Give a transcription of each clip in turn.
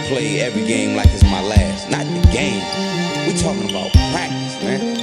play every game like it's my last. Not the game. We talking about practice, man.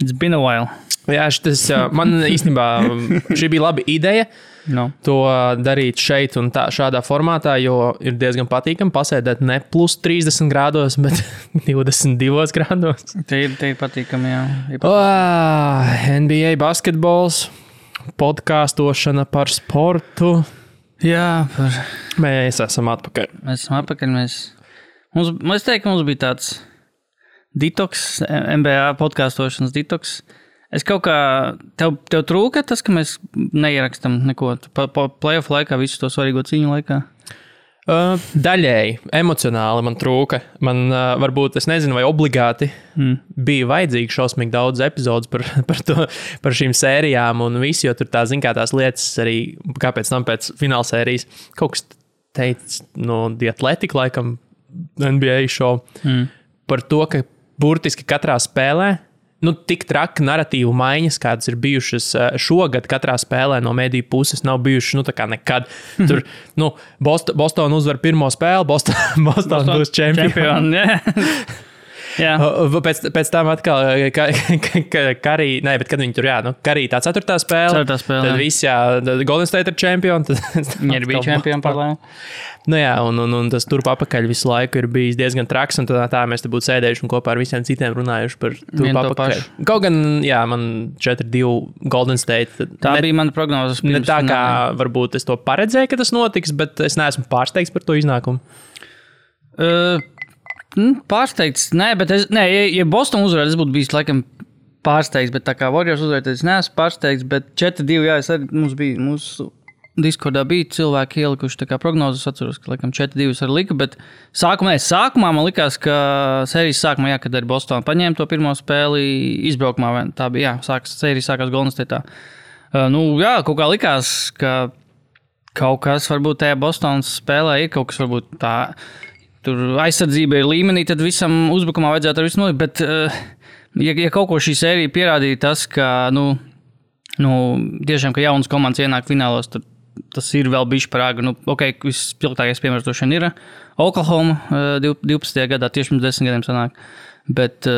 It's been a while. Jā, man īstenībā šī bija laba ideja to darīt šeit un šādā formātā, jo ir diezgan patīkami pasēdēt ne plus 30 grādos, bet 22 grādos. Te ir patīkami, jā. NBA basketbols, podkāstošana par sportu. Jā, Mēs esam atpakaļ. Mēs esam atpakaļ. Es teiktu, ka mums bija tāds detoks, NBA podkāstošanas detoks. Es kaut kā, tev trūka tas, ka mēs neierakstam neko playoff laikā, visu to svarīgo cīņu laikā? Daļēji, emocionāli man trūka. Man varbūt, es nezinu, vai obligāti bija vajadzīgi šausmīgi daudz epizodus par šīm sērijām un visu, jo tur tās lietas arī, kāpēc tam pēc fināla sērijas kaut kas teica no The Athletic, laikam, NBA show, par to, ka burtiski katrā spēlē, tik traki narratīvu maiņas, kādas ir bijušas šogad katrā spēlē no mediju puses, nav bijušas, tā kā nekad. Tur, Boston uzvar pirmo spēli, Boston būs čempioni. Jā. Pēc tam atkal, Karī, bet kad viņi tur, Karī tā ceturtā spēle, tad viss, Golden State ir čempioni. Viņi ir bija čempioni par lēmu. Un tas turp apakaļ visu laiku ir bijis diezgan traks, un tā mēs te būtu sēdējuši un kopā ar visiem citiem runājuši par turp apakaļ. Kaut gan, man 4-2 Golden State. Tā bija mana prognozes. Ne tā kā varbūt es to paredzēju, ka tas notiks, bet es neesmu pārsteigts par to iznākumu. Pārsteigts, ja Boston uzvarētu, es būtu bijis laikam pārsteigts, bet tā kā Warriors uzvarētu, es neesmu pārsteigts, bet 4-2, es arī mūsu Discordā bija cilvēki ielikuši tā kā prognozes, atceros, ka laikam 4-2 arī lika, bet sākumā man likās, ka sērijas sākumā, kad arī Boston paņēma to pirmo spēli izbraukumā, tā bija, sērijas sākās Golden State'ā. Kaut kā likās, ka kaut kas varbūt tajā Bostonas spēlē ir kaut kas varbūt tā, tur aizsardzība ir līmenī, tad visam uzbrukumā vajadzētu ar visu nolikt, bet ja kaut ko šī sērija pierādīja tas, ka, tiešām, ka jaunas komandas ienāk finālos, tad tas ir vēl bišķi par āgru. Vispilgtākais piemērs to šodien ir Oklahoma 12. gadā, tieši pirms 10 gadiem sanāk. Bet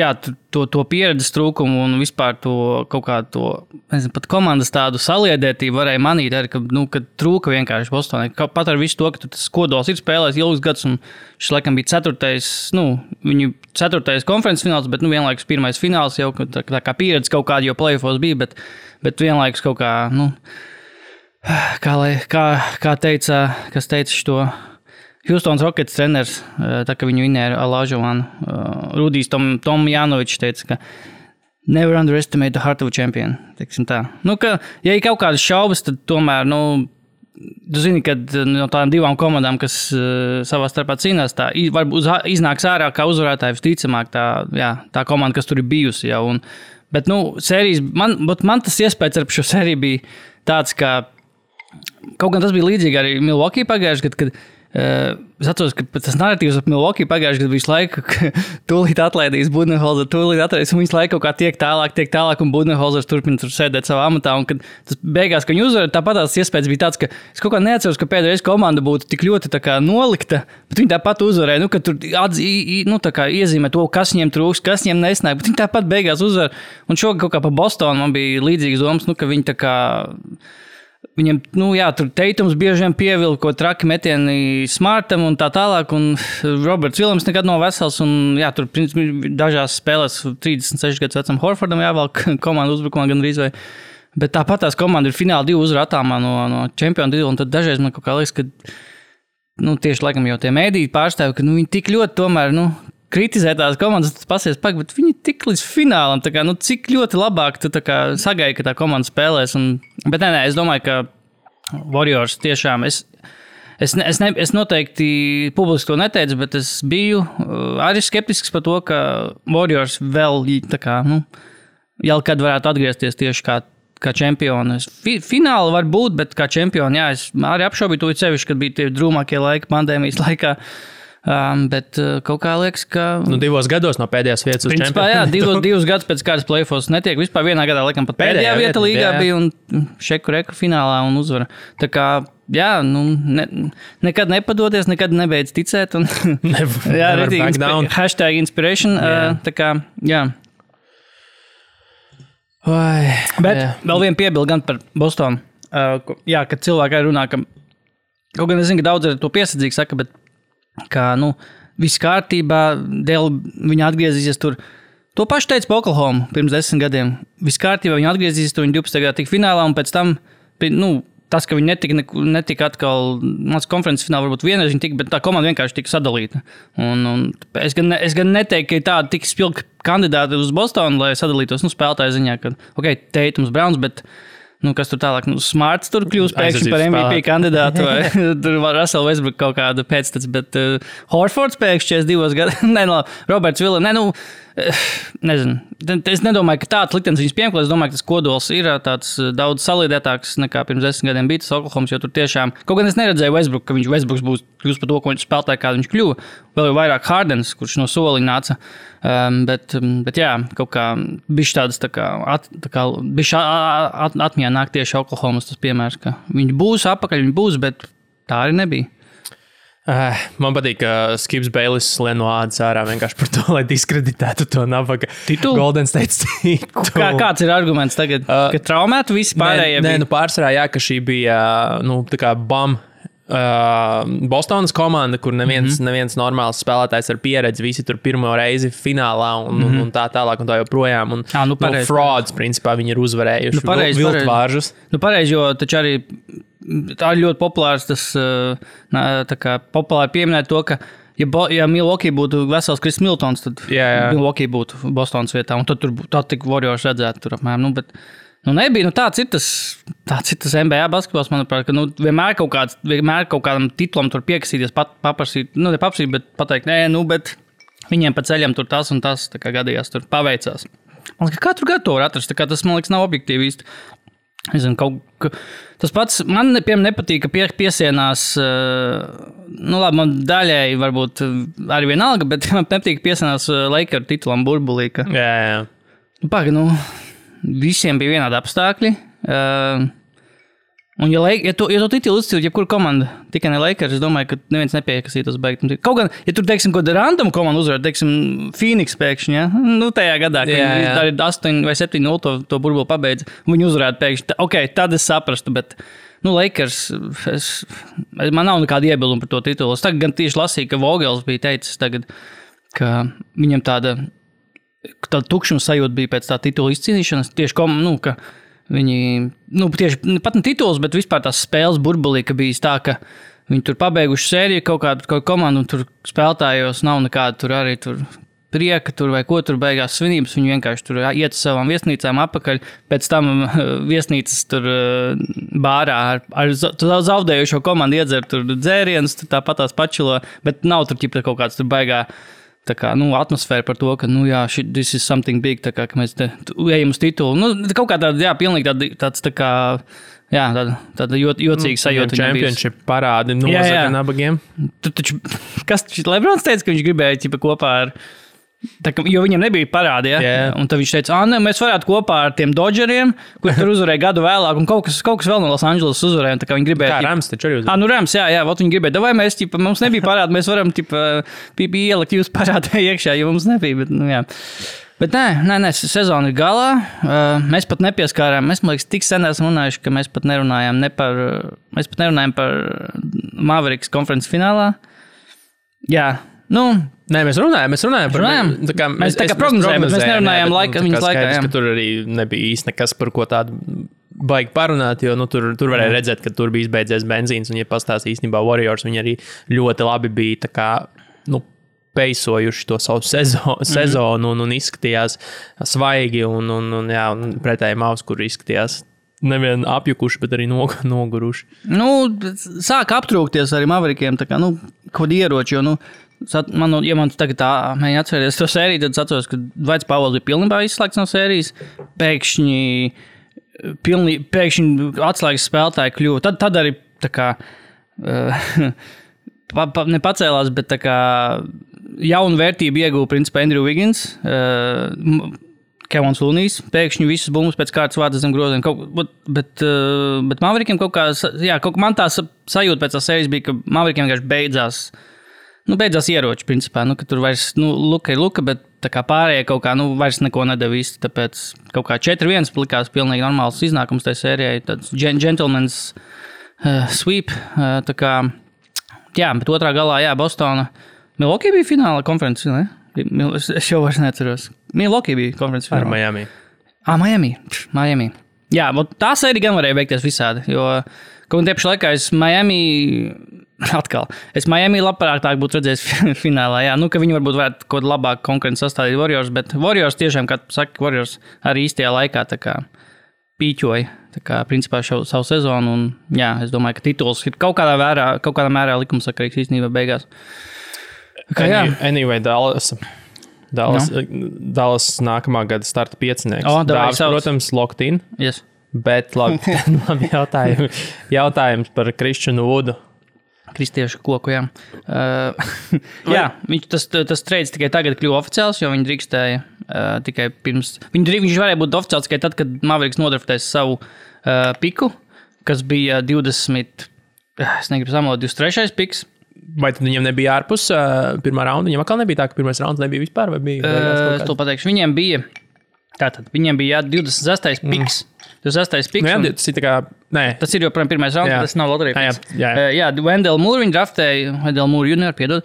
jā, to pieredzes trūkumu un vispār to kaut kā to, nezinu, pat komandas tādu saliedētību varēja manīt arī, ka trūka vienkārši Bostonai. Pat ar visu to, ka tas kodols ir spēlējis ilgus gadus un šis laikam bija viņu 4. konferences fināls, bet vienlaikus 1. fināls jau tā kā pieredze kaut kāda jau playoffos bija, bet vienlaikus kaut kā, kā teica, kas teica šo Houstons Rockets treneris, tā kā viņu vinēja Olajuwonu, Rudijs Tomjanovičs teica, ka never underestimate the heart of a champion, teiksim tā. Ja ir kaut kādas šaubas, tad tomēr, tu zini, ka no tādām divām komandām, kas savā starpā cīnās, tā varbūt iznāks ārā kā uzvarētāji visticamāk tā komanda, kas tur ir bijusi jau. Bet, sērijas, man tas iespējas ar šo sēriju bija tāds, ka kaut gan tas bija līdzīgi arī Milwaukee pagājuši, kad es atceros, ka tas narratīvs ap Milwaukee pagājuši, kad visu laiku tūlīt atlaidīs Budenholzer, un visu laiku kaut kā tiek tālāk, un Budenholzers turpina tur sēdēt savā amatā, un kad tas beigās, ka viņi uzvar, tāpat tās iespējas bija tāds, ka es kaut kā neatceros, ka pēdējais komanda būtu tik ļoti tā kā nolikta, bet viņi tāpat uzvarēja, ka tur tā kā iezīmē to, kas viņiem trūks, kas viņiem nesnāk, bet viņi tāpat beigās uzvar, un šogad kaut kā pa Bostonu man bija līdzīgas domas, ka viņi tā kā viņam, tur Teitums bieži vien pievilka, ko traki metieni Smartam un tā tālāk, un Roberts Viljams nekad nav vesels, un tur dažās spēlēs 36 gadus vecam Horfordam jāvelk komandu uzbrukumā gan drīz vai, bet tāpat tās komanda ir fināla 2 uzvaru attālumā no čempionu titula, un tad dažreiz man kaut kā liekas, ka, tieši laikam jau tie mēdīji pārstāvi, ka, viņi tik ļoti tomēr, kritizē tās komandas, tas pasies bet viņi tik līdz finālam, tā kā, cik ļoti labāk tu tā kā sagaidi, ka tā komanda spēlēs. Bet nē, es domāju, ka Warriors tiešām, es Es noteikti publiski to neteicu, bet es biju arī skeptisks par to, ka Warriors vēl tā kā, jau kad varētu atgriezties tieši kā čempioni. Fināli var būt, bet kā čempioni, jā, es arī apšaubīju to sevišķi, kad bija tie drūmākie laiki pandēmijas laikā. Bet kaut kā liekas, ka... 2 gados no pēdējās vietas uz čempionu. Jā, 2 gadus pēc kādas play-offs netiek. Vispār vienā gadā, laikam, pat pēdējā vieta līgā bija un šeku reku finālā un uzvara. Tā kā, jā, nekad nepadoties, nekad nebeidz ticēt. Un, jā, hashtag inspiration. Tā kā, jā. Bet vēl viena piebilda gan par Bostonu. Jā, kad cilvēki arī runā, ka... Kaut gan es zinu, ka daudz ar to piesardzīgi saka, bet ka, viss kārtībā, dēļ viņa atgriezīsies tur. To pašu teica Oklahoma pirms 10 gadiem. Viss kārtībā viņa atgriezīsies tur, viņa 12. gadā tika finālā, un pēc tam, tas, ka viņi netika atkal, mans konferences finālā varbūt vienreiz viņa tika, bet tā komanda vienkārši tika sadalīta. Un es gan neteiktu, ka ir tāda tik spilgta kandidāti uz Bostonu, lai sadalītos, spēlētāju ziņā, ka, Tatums, Browns, bet kas tur tālāk, Smarts tur kļūst pēkšņi par MVP kandidātu, vai tur var Russell Westbrook kaut kādu pēctec, bet Horfords pēkšņi 42 gadu, Roberts Villa, nezinu. Es nedomāju, ka tāds liktenis viņus piemeklē, es domāju, ka tas kodols ir tāds daudz salīdētāks nekā pirms 10 gadiem bija tas Oklahomas, jo tur tiešām, kaut gan es neredzēju Westbrook, ka Westbrooks būs kļūst par to, ko viņš spēlētāji, kā viņš kļuva, vēl jau vairāk Hardens, kurš no soliņa nāca. Bet jā, kaut kā bišķi tādas tā kā bišķi atmiņā nāk tieši Oklahomas tas piemērs, ka viņi būs apakaļ, viņi būs, bet tā arī nebija. Man patīk, ka Skips Bayless lien no ādas ārā vienkārši par to, lai diskreditētu to nabaga Golden State titulu. Kāds ir arguments tagad? Ka traumētu visi pārējie? Nē, pārsvarā jā, ka šī bija, tā kā BAM Bostonas komanda, kur neviens normāls spēlētājs ar pieredzi, visi tur pirmo reizi finālā un tā tālāk un tā joprojām. Un frauds, principā, viņi ir uzvarējuši viltvāržus. Pareizi, jo taču arī tā ir ļoti populārs tas, tā kā populāri pieminēt to, ka ja Milwaukee būtu vesels Kris Miltons, tad Milwaukee būtu Bostonas vietā, un tad tik Warriors redzētu tur apmēram, bet nebija, tāds ir tas NBA basketbols, manuprāt, ka vienmēr kaut kādam titulam tur piekasīties, paprasīt, nepaprasīt, bet pateikt, bet viņiem pa ceļam tur tas un tas, tā kā gadījās, tur paveicās. Man liekas, katru gadu to var atrast, tā kā tas, man liekas, nav objektīvi īsti. Es zinu, tas pats, man nepatīk, ka piesienās, labi, man daļēji varbūt arī vienalga, bet man nepatīk, ka piesienās Lakeru titulam burbulī, ka... Jā. Visiem bija vienādi apstākļi. Un ja to titulu izcīlīt, jebkura komanda, tikai ne Lakers, es domāju, ka neviens nepiekasītos beigt. Kaut gan, ja tur, teiksim, ko random komanda uzvarēt, teiksim, Phoenix pēkšņi, ja? Tajā gadā, kad tā ir 8 vai 7-0 to burbuli pabeidza, viņi uzvarētu pēkšņi. Tad es saprastu, bet, Lakers, man nav nekāda iebilduma par to titulu. Es tagad gan tieši lasīju, ka Vogels bija teicis tagad, ka viņam tāda tukšuma sajūta bija pēc tā titula izcīnīšanas, tieši ka viņi, tieši pat ne tituls, bet vispār tās spēles burbulī, ka bija tā, ka viņi tur pabeiguši sēriju kaut kādu komandu, un tur spēlētājos nav nekāda tur arī tur prieka tur vai ko tur beigās svinības, viņi vienkārši tur iet uz savām viesnīcām apakaļ, pēc tam viesnīcas tur bārā ar zaudējušo komandu iedzer tur dzērienus, tur tāpat tās pačilo, bet nav tur ķipta kaut kāds tur baigā tā kā, atmosfēra par to, ka, this is something big, tā kā, ka mēs te ejam uz titulu. Kaut kā tāda, tāds tā kā, tāda jocīga sajūta. Championship parādi nozaka nabagiem. Taču, kas Lebrons teica, ka viņš gribēja kopā ar... Jo viņam nebija parādi, un tad viņš teica, mēs varētu kopā ar tiem Dodgeriem, kur tur uzvarēja gadu vēlāk, un kaut kas vēl no Los Angeles uzvarēja, un tā kā viņi gribēja... Kā Rams taču arī uzvarēja. Rams, viņi gribēja, vai mēs, mums nebija parādi, mēs varam, ielikt jūs parādē iekšā, jo mums nebija, bet, Bet nē, sezona ir galā, mēs pat nepieskārām, mēs, man liekas, tik sen esam runājuši, ka mēs pat nerunājām par Mavericks konferences finālā. Jā, Nē, mēs runājam par... Mēs tā kā prognozējam, bet mēs nerunājām viņas laikā. Ka tur arī nebija īsti nekas, par ko tādu baigi parunāt, jo tur varēja redzēt, ka tur bija izbeidzies benzīns, un ja pastāst īstenībā Warriors, viņi arī ļoti labi bija tā kā, peisojuši to savu sezonu un izskatījās svaigi, un pretēji Mavs, kur izskatījās nevien apjukuši, bet arī noguruši. Nu, sāk aptrūkties arī Maverikiem, tā kā, nu, kaut ieroči, jo, nu, ja man tagad tā mēģina atcerēties to sēriju, tad es atceros, ka Dwights Powells bija pilnībā izslēgts no sērijas, pēkšņi atslēgas spēlētāji kļuva. Tad arī tā kā nepacēlās, bet tā kā jaunu vērtību ieguva principā Andrew Wiggins, Kevons Loonijs, pēkšņi visas bumbas pēc kārtas vārdas zem groziem. Bet Maverikiem kaut kā, man tā sajūta pēc tās sērijas bija, ka Maverikiem vienkārši beidzās ieroči, principā, ka tur vairs, luka ir luka, bet tā kā pārējie kaut kā, vairs neko nedeva īsti, tāpēc kaut kā 4-1 likās pilnīgi normāls iznākums tajā sērijai, tāds gentleman's sweep, tā kā, jā, bet otrā galā, jā, Bostona, Milwaukee bija fināla konferences, ne? Es jau vairs neatceros. Milwaukee bija konferences fināla. Ar Miami. Miami. Jā, tā sērija gan varēja beigties visādi, jo kaut tieši laikā es Miami labprātāk būtu redzējis finālā, jā, ka viņi varbūt varētu kaut labāk konkurenci sastādīt Warriors, bet Warriors tiešām, kā saka, Warriors arī īstajā laikā tā kā pīķoja, tā kā principā savu sezonu, un jā, es domāju, ka tituls ir kaut kādā mērā likumsakarīgs īstenībā beigās. Anyway, Dallas nākamā gada starta piecinieks. Dāvis, protams, locked in. Yes. Bet labi jautājums par Kristianu Vudu. Kristiešu koku, jā. Jā, tas trades tikai tagad kļuva oficiāls, jo viņi drīkstēja tikai pirms. Viņš varēja būt oficiāls tikai tad, kad Mavericks nodraftēs savu piku, kas bija 23. piks. Vai tad viņiem nebija ārpus pirmā raunda? Viņiem atkal nebija tā, ka pirmais rauns nebija vispār? Vai bija es to pateikšu. Viņiem bija 26. piks. 26. piks. Jā, tas ir tā kā... Nē. Tas ir joprojām pirmais rauns, tas nav loterija piks. Jā, Wendell Moore viņi draftēja, Wendell Moore junior, piedod.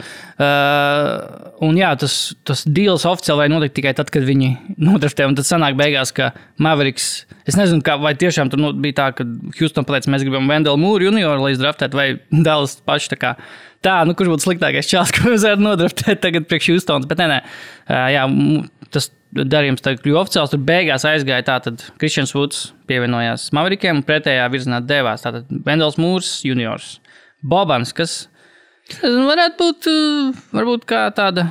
Un jā, tas deals oficiāli vai notiek tikai tad, kad viņi nodraftēja. Un tad sanāk beigās, ka Mavericks... Es nezinu, vai tiešām tur bija tā, ka Houston pateica, mēs gribam Wendell Moore junior, lai izdraftētu, vai Dallas paši tā kā... kurš būtu sliktākais čāls, ko mēs varētu nodraftēt tagad priekš Houstons. Bet nē. Jā, tas darījums tagad kļuva oficiāls. Tur beigās aizgāja tātad Christians Woods pievienojās Maverikiem un pretējā virzienā devās. Tātad Wendels Moores juniors. Bobans, kas varētu būt varbūt kā tāda,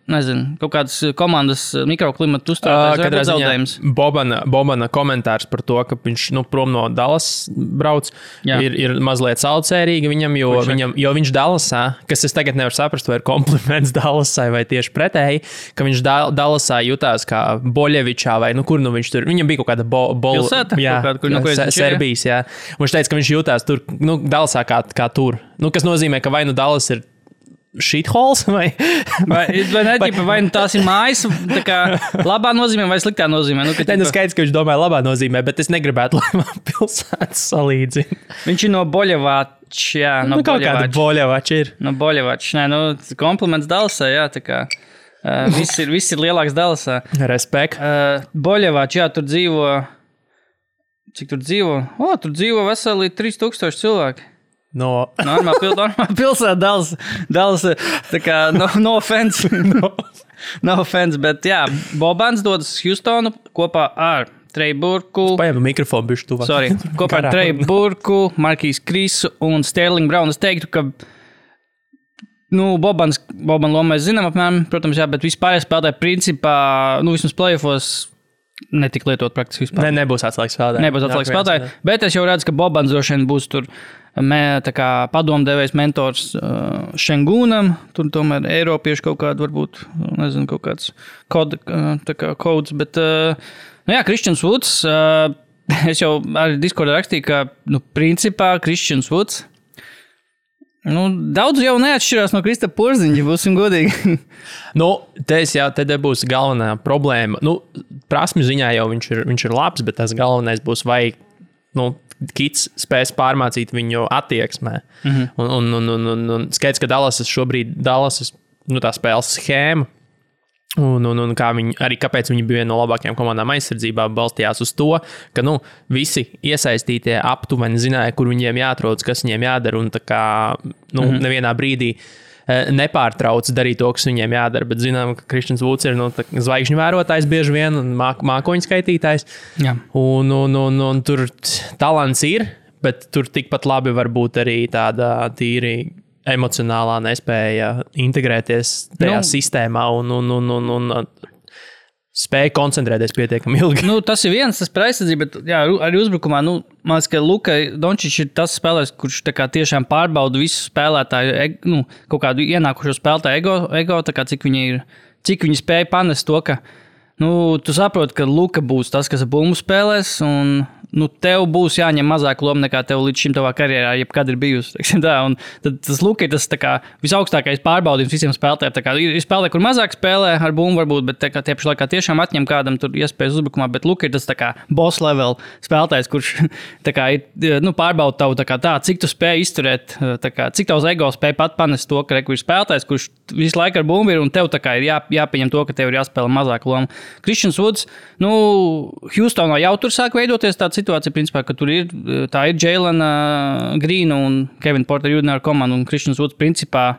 nezinu, kaut kādas komandas mikroklimata uzturētājs zaudējums. Bobana komentārs par to, ka viņš prom no Dallas brauc, ir mazliet saucērīgi viņam, jo viņš Dallasā, kas es tagad nevaru saprast, vai ir kompliments Dallasai vai tieši pretēji, ka viņš Dallasā jutās kā Boļevičā vai kur viņš tur, viņam bija kaut kāda pilsēta, Serbijas, jā. Un viņš teica, ka viņš jutās tur, Dallasā kā tur. Kas nozīmē, ka vai Dallas ir shitholes vai tās ir mājas, tā kā labā nozīmē vai sliktā nozīmē. Skaidrs, ka viņš domāja labā nozīmē, bet es negribētu, lai man pilsētas salīdzina. Viņš ir no Boļevača, jā. Kaut kāda Boļevača ir. No Boļevača, kompliments Dallasā, jā, tā kā viss ir lielāks Dallasā. Respekt. Boļevača, jā, tur dzīvo, cik tur dzīvo? Tur dzīvo veseli 3000 cilvēki. Normāla pilsēta Dallas, tā kā no offense. No offense, bet jā, Bobans dodas Houstonu kopā ar Trey Burku. Paņem mikrofonu bišķi tuvāk. Sorry, kopā ar Trey Burku, Markijs Krisu un Sterling Brown. Es teiktu, ka Boban lomu mēs zinām apmēram, protams, jā, bet vispār spēlētāji principā, vismaz playoffos netika lietot praktiski vispār. Nebūs atslēgas spēlētāji. Bet es jau redzu, ka Bobans droši vien būs tur tā kā padomdevējs mentors Šengūnam, tur tomēr Eiropieši kaut kādu varbūt, nezinu, kaut kāds kods, bet, jā, Christians Woods, es jau arī Discordā rakstīju, ka, principā Christians Woods, daudz jau neatšķirās no Krista Porziņa, būsim godīgi. Te būs galvenā problēma. Prasmi ziņā jau viņš ir labs, bet tas galvenais būs vai, Kits spēs pārmācīt viņu attieksmē. Un skaidrs, ka Dallas tā spēles schēma, un kāpēc viņi bija viena no labākajām komandām aizsardzībā, balstījās uz to, ka visi iesaistītie aptuveni zināja, kur viņiem jāatrodas, kas viņiem jādara, un nevienā brīdī nepārtrauc darīt to, kas viņiem jādara. Bet zinām, ka Kristians Vuds ir zvaigžņu vērotājs bieži vien un mākoņu skaitītājs. Jā. Un tur talants ir, bet tur tikpat labi var būt arī tāda tīri emocionālā nespēja integrēties tajā sistēmā un spēja koncentrēties pietiekami ilgi. Tas ir viens, tas par aizsardzību, bet jā, arī uzbrukumā, man liekas, ka Luka Dončičs ir tas spēlētājs, kurš tā kā tiešām pārbauda visu spēlētāju, kaut kādu ienākušo spēlētāju ego, tā kā cik viņi spēja panest to, ka, tu saproti, ka Luka būs tas, kas bumbu spēlēs, un tev būs jāņem mazāk loma nekā tev līdz šim tavā karjerā, jebkad ir bijusi. Un tad tas Luka ir tas tā kā visaugstākais pārbaudījums visiem spēlētājiem. Ir spēlētāji, kur mazāk spēlē ar bumbu varbūt, bet tie paši laikā tiešām atņem kādam tur iespējas uzbrukumā, bet Luka ir tas tā kā boss level spēlētājs, kurš tā kā ir, pārbauda tavu tā, cik tu spēj izturēt, cik tavs ego spēj pat panest to, ka ir spēlētājs, kurš visu laiku ar bumbu ir, un tev tā kā ir jāpieņem to, ka tev ir jāspēlē mazāk loma. Kristians Vuds, Houstonā jau tur sāk veidoties tāda situācija, principā, ka tur ir Jailena Grīna un Kevina Porter Jr. komanda, un Kristians Vuds, principā,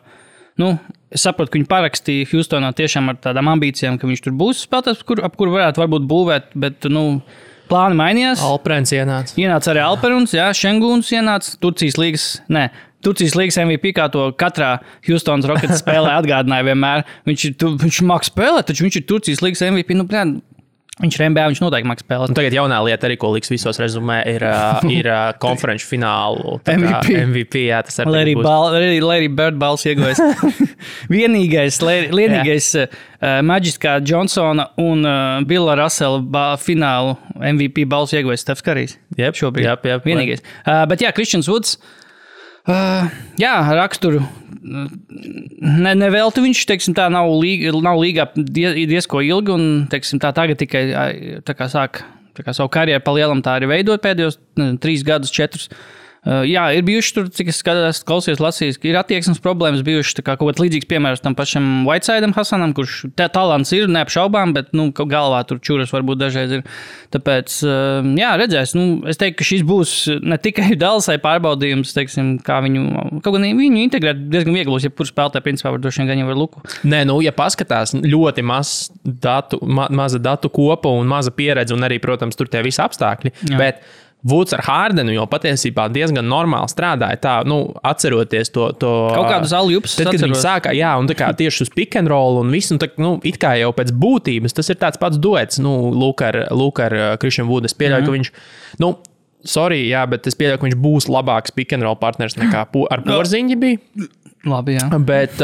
es saprotu, ka viņi parakstīja Houstonā tiešām ar tādām ambīcijām, ka viņš tur būs spēlētājs, ap kuru varbūt būvēt, bet, plāni mainījās. Alperens ienāca. Ienāca arī Alperens, jā, Šenguns ienāca, Turcijas līgas MVP, kā to katrā Houstonas Rockets spēlē atgādināja vienmēr. Viņš māk spēlēt, taču viņš ir Turcijas līgas MVP, viņš ir NBA, viņš noteikti māk spēlēt. Tagad jaunā lieta arī, ko liks visos rezumē, ir konferenču finālu MVP. Jā, tas arī Larry Bird balss ieguvējis. Vienīgais Magiskā Johnsona un Billa Russella finālu MVP balss ieguvējis Stefs Karijs. Šobrīd. Jep. Vienīgais. Bet jā, Kristians Vuds, raksturu. Nevelti viņš, nav līgā diezko ilgi, un, tagad tikai sāk savu karjeru pa lielam tā arī veidot pēdējos 3 gadus, 4. Jā, ir bijuši tur, cik es klausījos, lasījis, ir attieksmes problēmas bijuši, kā kaut kāds līdzīgs piemērs tam pašam Whitesideam Hasanam, kurš talants ir, neapšaubām, bet, galvā tur čuras varbūt dažreiz ir. Tāpēc, jā, redzēs, es teiktu, ka šis būs ne tikai Dallasai pārbaudījums, kā viņu integrēt diezgan viegli, ja kur spēlētāji, principā, var droši vien gan jau ar Luku. Nē, ja paskatās, ļoti maza datu kopa un maza pieredze, un arī, protams, tur tie visi apstākļi, jā. Bet Vuds ar Hardenu jau patiesībā diezgan normāli strādāja. Tā, atceroties to kaut kādus aljupus. Tad, kad viņi sākā, jā, un tā kā tieši uz pick and roll un visu, un tā, it kā jau pēc būtības, tas ir tāds pats duets, Luka ar Kristianu Vudu. Es pieļauju, ka viņš, sorry, jā, bet es pieļauju, ka viņš būs labāks pick and roll partners nekā ar Porziņģi bija. Labi, jā. Bet,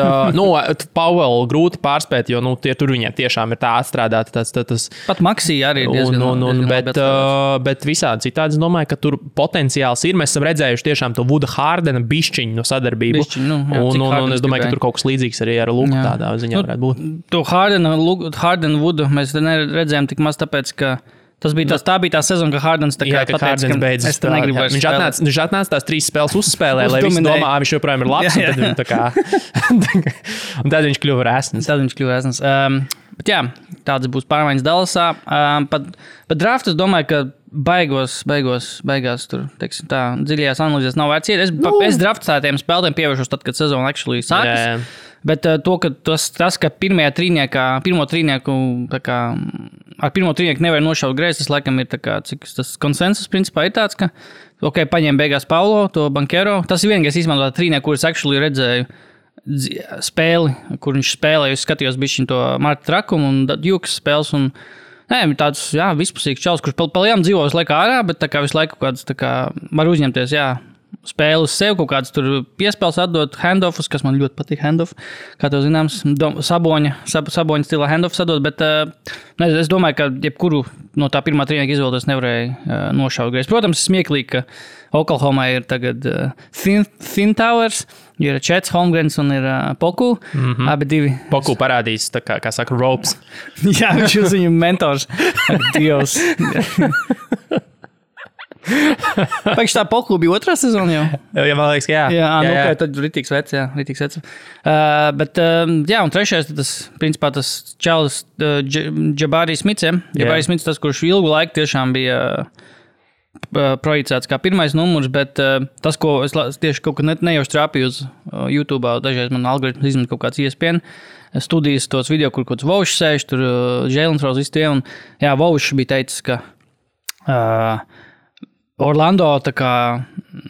Powell grūti pārspēt, jo, tur viņiem tiešām ir tā atstrādāta. Tas, pat Maxī arī ir diezgan bet visādi citādi, es domāju, ka tur potenciāls ir. Mēs esam redzējuši tiešām to Vuda Hardena bišķiņu sadarbību. Un es domāju, ka tur kaut kas līdzīgs arī ar Luku tādā ziņā varētu būt. To Hardena Vudu mēs neredzējām tik maz tāpēc, ka tā bija tā sezona, ka Hardens pateica, beidzas. Viņš atnāca tās 3 spēles uzspēlē, lai visi domā, viņš joprojām ir labs, un tad viņš tā kā... un tad viņš kļuva resns. Bet jā, tāds būs pārmaiņas Dallasā. Pat draft, es domāju, ka beigās tur, dziļajās analīzēs nav vērts iet. Es draftētiem spēlētiem pievēršos tad, kad sezona actually sākas. Bet to, ka tas, ka pirmo trīnieku ar pirmo trīnieku nevar nošaut greizi, tas laikam ir tas konsensus principā ir tāds, ka paņem beigās Paulo, to Bankero. Tas ir vienīgais izmantot trīnieku, kurus actually redzēju spēli, kur viņš spēlēja. Es skatījos bišķiņ to Marta Trakumu un Jukas spēles un tāds, vispusīgs čalis, kurš palielam dzīvo visu laiku ārā, bet visu laiku kāds var uzņemties, spēli uz sevi, kaut kāds tur piespēles atdot handoffus, kas man ļoti patīk handoff, kā tev zināms, Saboņa stilā handoffus atdot, bet es domāju, ka jebkuru no tā pirmā trīnieka izvēlēties nevarēja nošaut greizi. Protams, smieklīgi, ka Oklahomā ir tagad Thin Towers, ir Čets Holmgrens un ir Poku, abi divi. Poku parādīs, kā saka, ropes. Jā, viņš ir viņu mentors. Dievs. Pēc tā Poku bija 2. sezona jau? Jā, man liekas, jā. Jā. Tad ritīgs vecs. Bet, un 3. tas, principā, tas Čalis Jabari Smits, Jabari Smits, tas, kurš ilgu laiku tiešām bija projicēts kā pirmais numurs, bet tas, ko es tieši kaut kad nejauši trāpīju uz YouTube, dažreiz man algoritms izmet kaut kāds ESPN studijas tos video, kur kaut kāds Vaušs sēž, tur Jalen Rose visi tie, un jā, Vaušs bija teicis, ka Orlando tā kā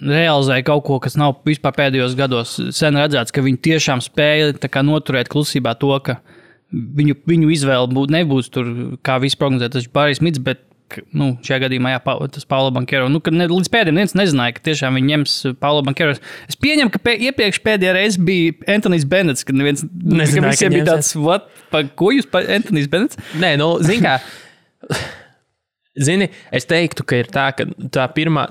realizēja kaut ko, kas nav vispār pēdējos gados sen redzēts, ka viņi tiešām spēja tā kā noturēt klusībā to, ka viņu izvēle nebūs tur, kā viss prognozēt, tas ir Barijs Mits, bet šajā gadījumā, tas Paulo Banchero. Līdz pēdējiem viens nezināja, ka tiešām viņi ņems Paulo Banchero. Es pieņemu, ka iepriekš pēdējā reize bija Anthony's Bennetts, kad neviens nezināja, ka visiem bija tāds, ko jūs Anthony's Bennetts? Nē, zini kā, es teiktu, ka ir tā, ka tā pirmā,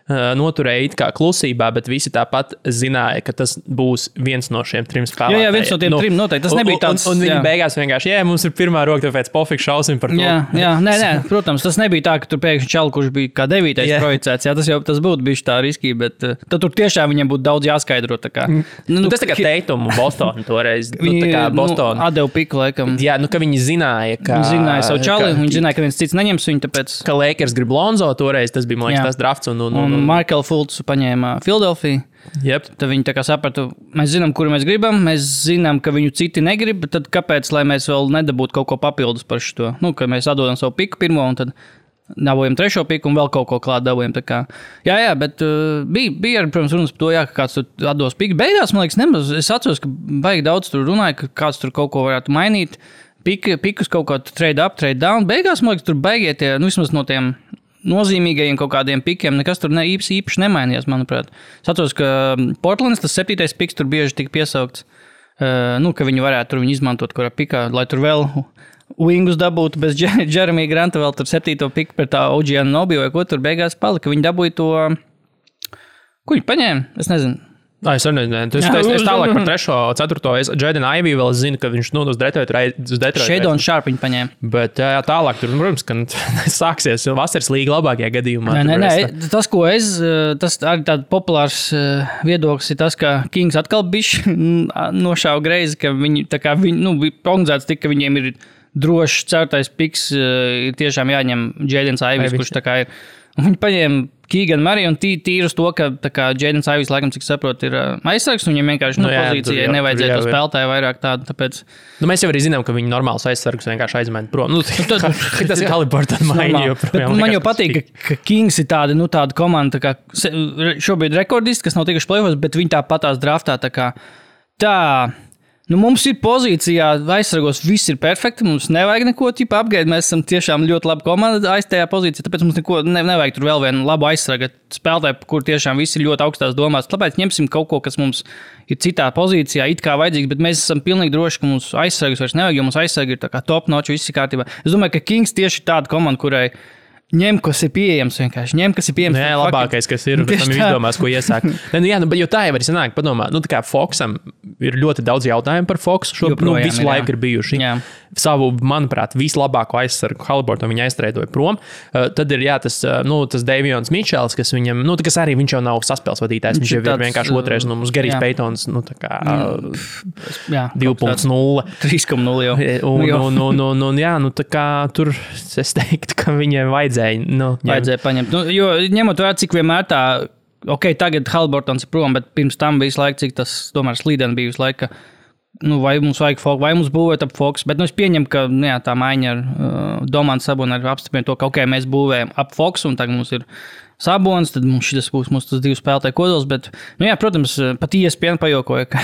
noturēja it kā klusībā, bet visi tāpat zināja, ka tas būs viens no šiem 3 spēlētājiem. Jā, viens no tiem 3 noteikti. Tas nebija tāds. Un viņi beigās vienkārši, mums ir pirmā roka, tāpēc pofik šausim par to. Jā, nē, protams, tas nebija tā, ka tur pēkšņi čalu, kurš bija kā 9. projicēts. Jā, tas būtu bijis tā riskīgi, bet tad tur tiešām viņiem būtu daudz jāskaidro. Tā kā. Tas tā kā Teitumu Bostonu toreiz. Tā kā Bostonu. Atdevu piku, laikam. Jā, ka viņi zināja, ka. Viņi zināja savu čali, viņi zināja, ka viens cits neņems viņu, tāpēc. Ka Lakers grib Lonzo toreiz, tas bija, man liekas, tas drafts. Un Markel Fultz paņēma Philadelphia. Yep. Tad viņi tā kā sapratu, mēs zinām, kuru mēs gribam, mēs zinām, ka viņu citi negrib, tad kāpēc, lai mēs vēl nedabūtu kaut ko papildus par šo? Ka mēs atdodam savu piku pirmo un tad dabūjam 3. piku un vēl kaut ko klāt dabūjam. Jā, bet bija arī, protams, runas par to, ka kāds tur atdos piku. Beigās, man liekas, nemaz. Es atceros, ka baigi daudz tur runāja, ka kāds tur kaut ko varētu mainīt. Pikus kaut kā trade up, trade down. Beigās, man liekas, tur beigie tie, vismaz no tiem nozīmīgajiem kaut kādiem pikiem, nekas tur īpaši nemainījās, manuprāt. Es atceros, ka Portlands, tas 7. piks tur bieži tika piesaukts, ka viņi varētu tur viņu izmantot kurā pikā, lai tur vēl wingus dabūtu bez Jeremy Granta, vēl tur 7. piku par tā OG Anunoby vai ko tur beigās palika. Viņi dabūja to, ko viņi paņēma, es nezinu. Es nezinu, es tālāk par 3. 4. Jaden Ivey vēl zinu, ka viņš uz Detroit. Shadon Sharp viņi paņēma. Bet jā, tālāk tur, protams, ka sāksies vasaras līga labākajā gadījumā. Nē, tas, ko tas arī tāds populārs viedoklis ir tas, ka Kings atkal bišķi nošāva greizi, ka viņi, tā kā viņi, prognozēts tik, ka viņiem ir drošs 4. piks, ir tiešām jāņem Jadens Iveys, kurš tā kā ir. Un viņi paņēma Keegan Murray un tīri uz to, ka Jadens Iveys, laikam, cik saprot, ir aizsargs, un viņam vienkārši pozīcijai nevajadzētu spēlētāju vairāk tādu, tāpēc. Mēs jau arī zinām, ka viņi normāls aizsargs vienkārši aizmet prom. Tas ir Haliburton maiņa joprojām. Man jau patīk, ka Kings ir tāda komanda, tā kā šobrīd rekordisti, kas nav tikuši play-offs, bet viņi tāpatās draftā, tā. Mums ir pozīcijā, aizsargos viss ir perfekti, mums nevajag neko apgaidīt, mēs esam tiešām ļoti laba komanda aiz tajā pozīcijā, tāpēc mums neko nevajag tur vēl vienu labu aizsargu spēlētāju, kur tiešām visi ir ļoti augstās domās. Tāpēc ņemsim kaut ko, kas mums ir citā pozīcijā, it kā vajadzīgs, bet mēs esam pilnīgi droši, ka mums aizsargus vairs nevajag, jo mums aizsargi ir tā kā top notch, viss ir kārtībā. Es domāju, ka Kings tieši ir tāda komanda, kurai ņem, kas ir pieejams vienkārši. Jā, labākais, kas ir, bet tam ir izdomās, ko iesākt. Jo tā jau arī sanāk, padomā, tā kā Foxam ir ļoti daudz jautājumu par Foxu, visu laiku ir bijuši. Jā. Savu, manuprāt, vislabāko aizsargu Haliburton viņa aizstrēdoja prom. Tad ir, tas Davions Mičels, kas viņam, kas arī viņš jau nav saspēles vadītājs, viņš jau ir vienkārši otrais, mums Gerijs Peitons, 2.0. 3.0 jau. Tā kā tur es teiktu, ka viņiem vajadzēja paņemt. Jo ņemot vērā, cik vienmēr tā, tagad Haliburtons ir prom, bet pirms tam bija laika, cik tas tomēr slīdeni bija visu laiku, vai mums vajag Fox, vai mums būvēt ap Fox, bet es pieņemu, ka tā maiņa ar Domantu Sabonu arī apstiprina to, ka mēs būvējam ap Fox, un tagad mums ir Sabons, tad mums šis būs mūsu tas 2 spēlētāju kodols, bet, protams, pat ESPN pajokoja, ka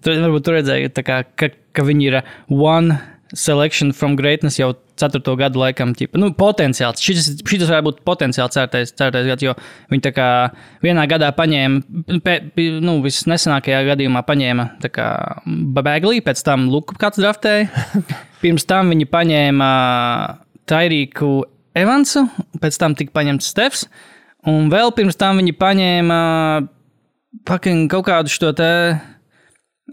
varbūt tur redzēja, ka viņi ir one selection from greatness jau 4. gadu laikam, potenciāls. Šis varētu būt potenciāls certais gads, jo viņi tā kā vienā gadā paņēma, visnesenākajā gadījumā paņēma tā kā Bagley, pēc tam Luku kāds draftēja. Pirms tam viņi paņēma Tyrīku Evansu, pēc tam tika paņemts Stefs, un vēl pirms tam viņi paņēma kaut kādu šo te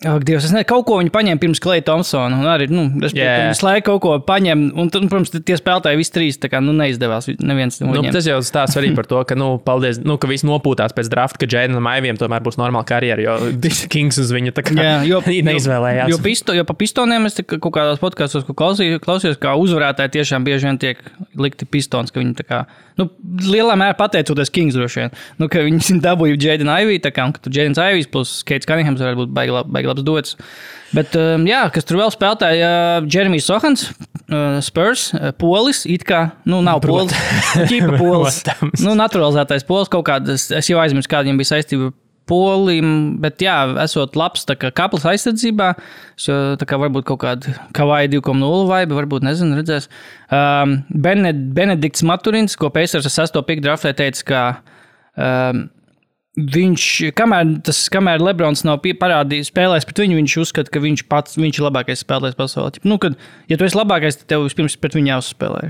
Ak, Dievs, es nezinu, kaut ko viņi paņēma pirms Klay Thompsona. Un arī, visu laiku kaut ko paņem. Un, protams, tie spēlētāji visi trīs, tā kā, neizdevās. Neviens no viņiem. Tas jau stāsts arī par to, ka, paldies, ka visi nopūtās pēc drafta, ka Jadenam Aiviem tomēr būs normāla karjera, jo Kings uz viņu tā kā neizvēlējās. Jo pa Pistoniem es kaut kādās podkastos klausījos, kā uzvarētāji tiešām bieži vien tiek likti Pistons, ka viņi tā kā, lielā mērā pateicoties Kings droši vien, ka viņi dabūja Jaden Ivey, tā kā, un ka tur Jadens Ivejs plus Keits Cunninghams varētu būt baigi labs dots. Bet, kas tur vēl spēlētāji, Jeremijs Sohans, Spurs, Polis, it kā, nav Polis, ķipa Polis, naturalizētais Polis, kaut kādas, es jau aizmirsu, kāda viņam bija saistība Polim, bet esot labs tā kā kaplas aizsardzībā, tā kā varbūt kaut kāda Kawhi 2.0 vibe, varbūt, nezinu, redzēs. Benedikts Maturins, ko Pacers ar 6. pick draftē teica, ka viņš, kamēr Lebrons nav parādījis spēlēs pret viņu, viņš uzskata, ka viņš ir labākais spēlētājs pasaulē. Kad, ja tu esi labākais, tad tev vispirms pret viņu jāuzspēlē.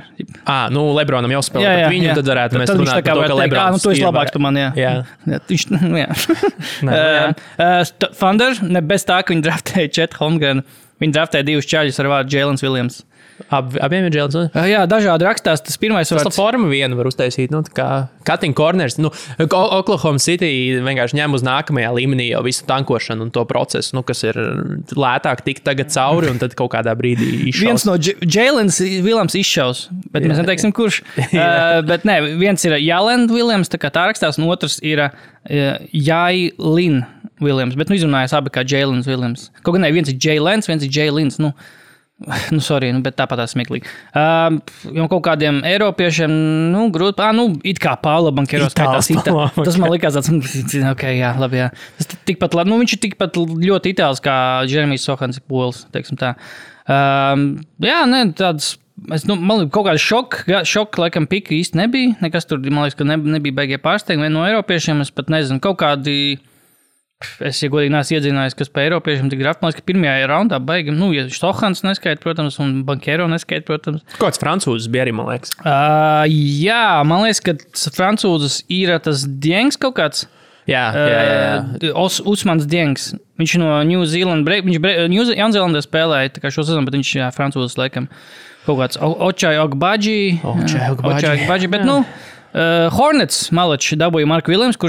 Lebronam jāuzspēlē pret viņu, tad varētu mēs runāt par to, ka Lebrons tu esi labāks par mani, jā. Thunder, ne bez tā, ka viņi draftēja Chet Holmgren, viņi draftēja 2 čaļus ar vārdu Jēlens Viljams. Abiem ir Jēlens? Jā, dažādi rakstās. Tas pirmais vārds. Tas forma vienu var uztaisīt, kā cutting corners. Oklahoma City vienkārši ņem uz nākamajā līmenī jau visu tankošanu un to procesu, kas ir lētāk tikt tagad cauri un tad kaut kādā brīdī izšaus. Viens no Jēlens Viljams izšaus, bet mēs neteiksim, kurš. Bet nē, viens ir Jēlens Viljams, tā kā tā rakstās, un otrs ir Jailin Viljams, bet izrunājas abi kā Jēlens Viljams. Kaut gan ne, viens ir Jēlens, viens ir Jēlins, sorry, bet tāpat tā smieklīgi. Jo kaut kādiem eiropiešiem, grūti, it kā Paula Bankero skaitās. Tas man likās tāds, jā, labi, jā. Tas tikpat, viņš ir tikpat ļoti itāls kā Jeremijs Sohans Pols, teiksim tā. Tāds, man kaut kāda šoka, laikam, pika īsti nebija. Nekas tur, man liekas, ka nebija beigie pārsteigumi. Vien no eiropiešiem, es pat nezinu, kaut kādi. Es, ja godīgi neesmu iedzinājis, kas pa eiropiešiem tik draft. Man liekas, ka pirmajā raundā baigi, ja Sohans neskaita, protams, un Bankero neskaita, protams. Kāds francūzes bija arī, man liekas? Jā, man liekas, ka francūzes ir tas Diengs kaut kāds. Jā. Usmans Diengs. Viņš no New Zealand, viņš Jaunzēlandē spēlēja tā kā šo sezonu, bet viņš francūzes laikam kaut kāds Ochai Ogbaji. Bet, Hornets Malačs dabūja Marku Viljams,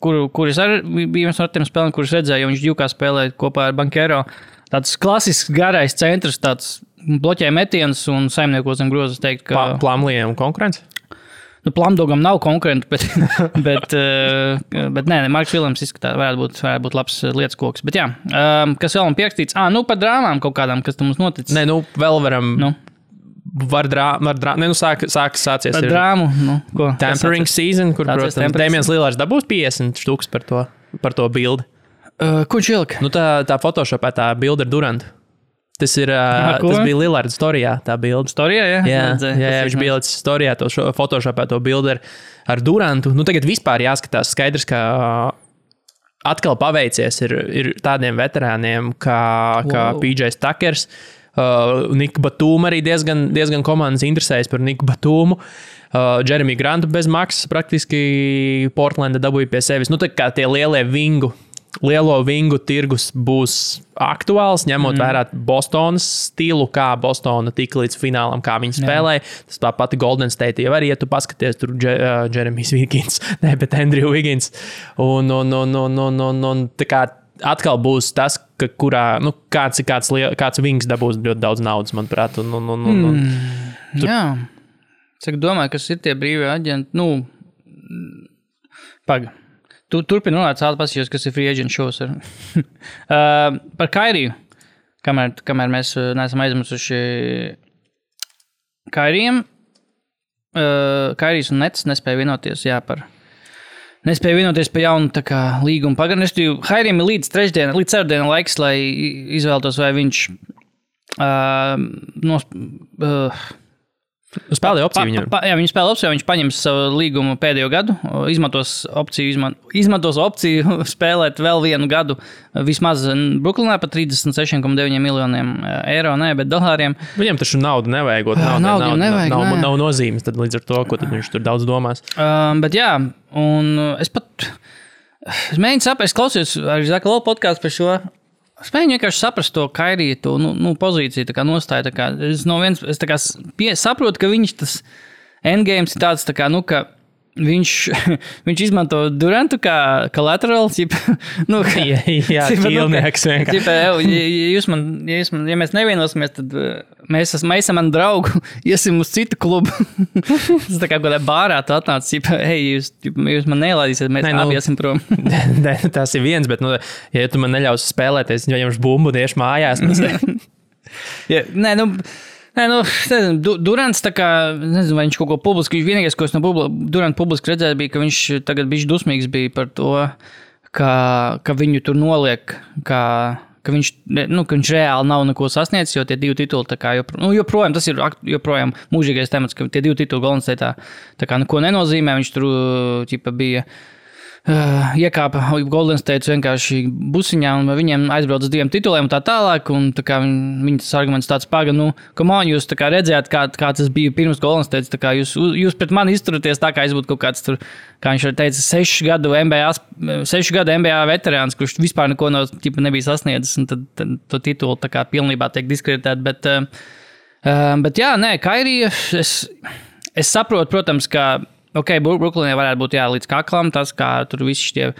kuris arī bija viens no tiem spēlēm, kurus redzēja, jo viņš ģūkā spēlēja kopā ar Bankero. Tāds klasisks garais centrs, tāds bloķē metiens un saimniekos zem grozas teikt, ka... Plumleeam konkurence? Plumdogam nav konkurenti, bet nē, Marks Viljams izskatās, varētu būt labs lietas koks. Bet jā, kas vēl man pierakstīts? Par drāmām kaut kādām, kas tam mums noticis. Nē, vēl varam... Sācies ar drāmu. Ko? Tampering season, kur, protams, Damians Lillards dabūs 50 štuks par to bildi. Ko viņš ielika? Tā Photoshopā bilde ar Durantu. Tas bija Lillards storijā, tā bilde. Storijā, jā? Jā, viņš bija līdz storijā, Photoshopā to bilde ar Durantu. Tagad vispār jāskatās skaidrs, ka atkal paveicies ir tādiem veterāniem kā PJ Tuckers. Niku Batūmu arī diezgan komandas interesējas par Niku Batūmu. Jeremy Grantu bez maksas praktiski Portlanda dabūja pie sevis. Tā kā tie lielo vingu tirgus būs aktuāls, ņemot vērā Bostonas stilu, kā Bostona tika līdz finālam, kā viņi spēlēja. Tas tā pati Golden State jau arī, ja tu paskaties, tur Jeremijs Wiggins, bet Andrew Wiggins. Un tā kā atkal būs tas, kāds vings dabūs ļoti daudz naudas, manuprāt. Jā. Cik domāju, kas ir tie brīvie aģenti? Turpin runāt, pasījos, kas ir free agent shows. Par Kairiju, kamēr mēs neesam aizmirsuši Kairijam. Kairijs un Nets nespēja vienoties, Nespēja vienoties par jaunu līgumu pagarinājuma. Hairim ir līdz ceturtdienai laiks, lai izvēlētos, vai viņš spēlē opciju viņam. Viņš spēlē opciju, viņš paņems savu līgumu pēdējo gadu, izmantos opciju spēlēt vēl vienu gadu vismaz Brooklynā par 36,9 miljoniem eiro, bet dolāriem. Viņam taču naudu nevajag. Nav nozīmes, tad līdz ar to, ko tad viņš tur daudz domās. Bet jā, un es mēģinu saprast, es klausījos arī Zaka Lola podcastu par šo, Es mēģinu vienkārši saprast to Kairiju, to pozīciju, tā kā nostāju. Tā kā, es tā kā saprotu, ka viņš tas endgames ir tāds, tā kā, ka viņš izmanto Durantu kā collateral. Jā, ķīlnieks vienkārši. Ja mēs nevienosimies, tad mēs esam mani draugu, iesim uz citu klubu. Tas tā kā kādā bārā tu atnāc, jūs man nelaidīsiet, mēs abi iesim prom. Tas ir viens, bet, ja tu man neļaus spēlēties, ja jums bumbu tieši mājās. Durants tā kā, nezinu, vai viņš kaut ko publiski, vienīgais, ko es no Duranta publiski redzēju, bija, ka viņš tagad bišķi dusmīgs bija par to, ka viņu tur noliek, ka viņš reāli nav neko sasniedzis, jo tie 2 tituli tā kā joprojām, tas ir joprojām mūžīgais temats, ka tie 2 tituli Golden State tā kā neko nenozīmē, viņš tur bija iekāpa Golden State vienkārši busiņā un viņiem aizbrauc uz 2 tituliem un tā tālāk, un tā kā viņa tas arguments tāds paga, come on, jūs tā kā redzējāt, kā tas bija pirms Golden State, tā kā jūs pret mani izturaties tā, kā es būtu kaut kāds tur, kā viņš arī teica, 6 gadu NBA veterāns, kurš vispār neko nebija sasniedzis, un tad to titulu tā kā pilnībā tiek diskreditēt, bet jā, nē, Kairija, es saprotu, protams, ka Brooklynē varētu būt līdz kaklam tas, kā tur visi šie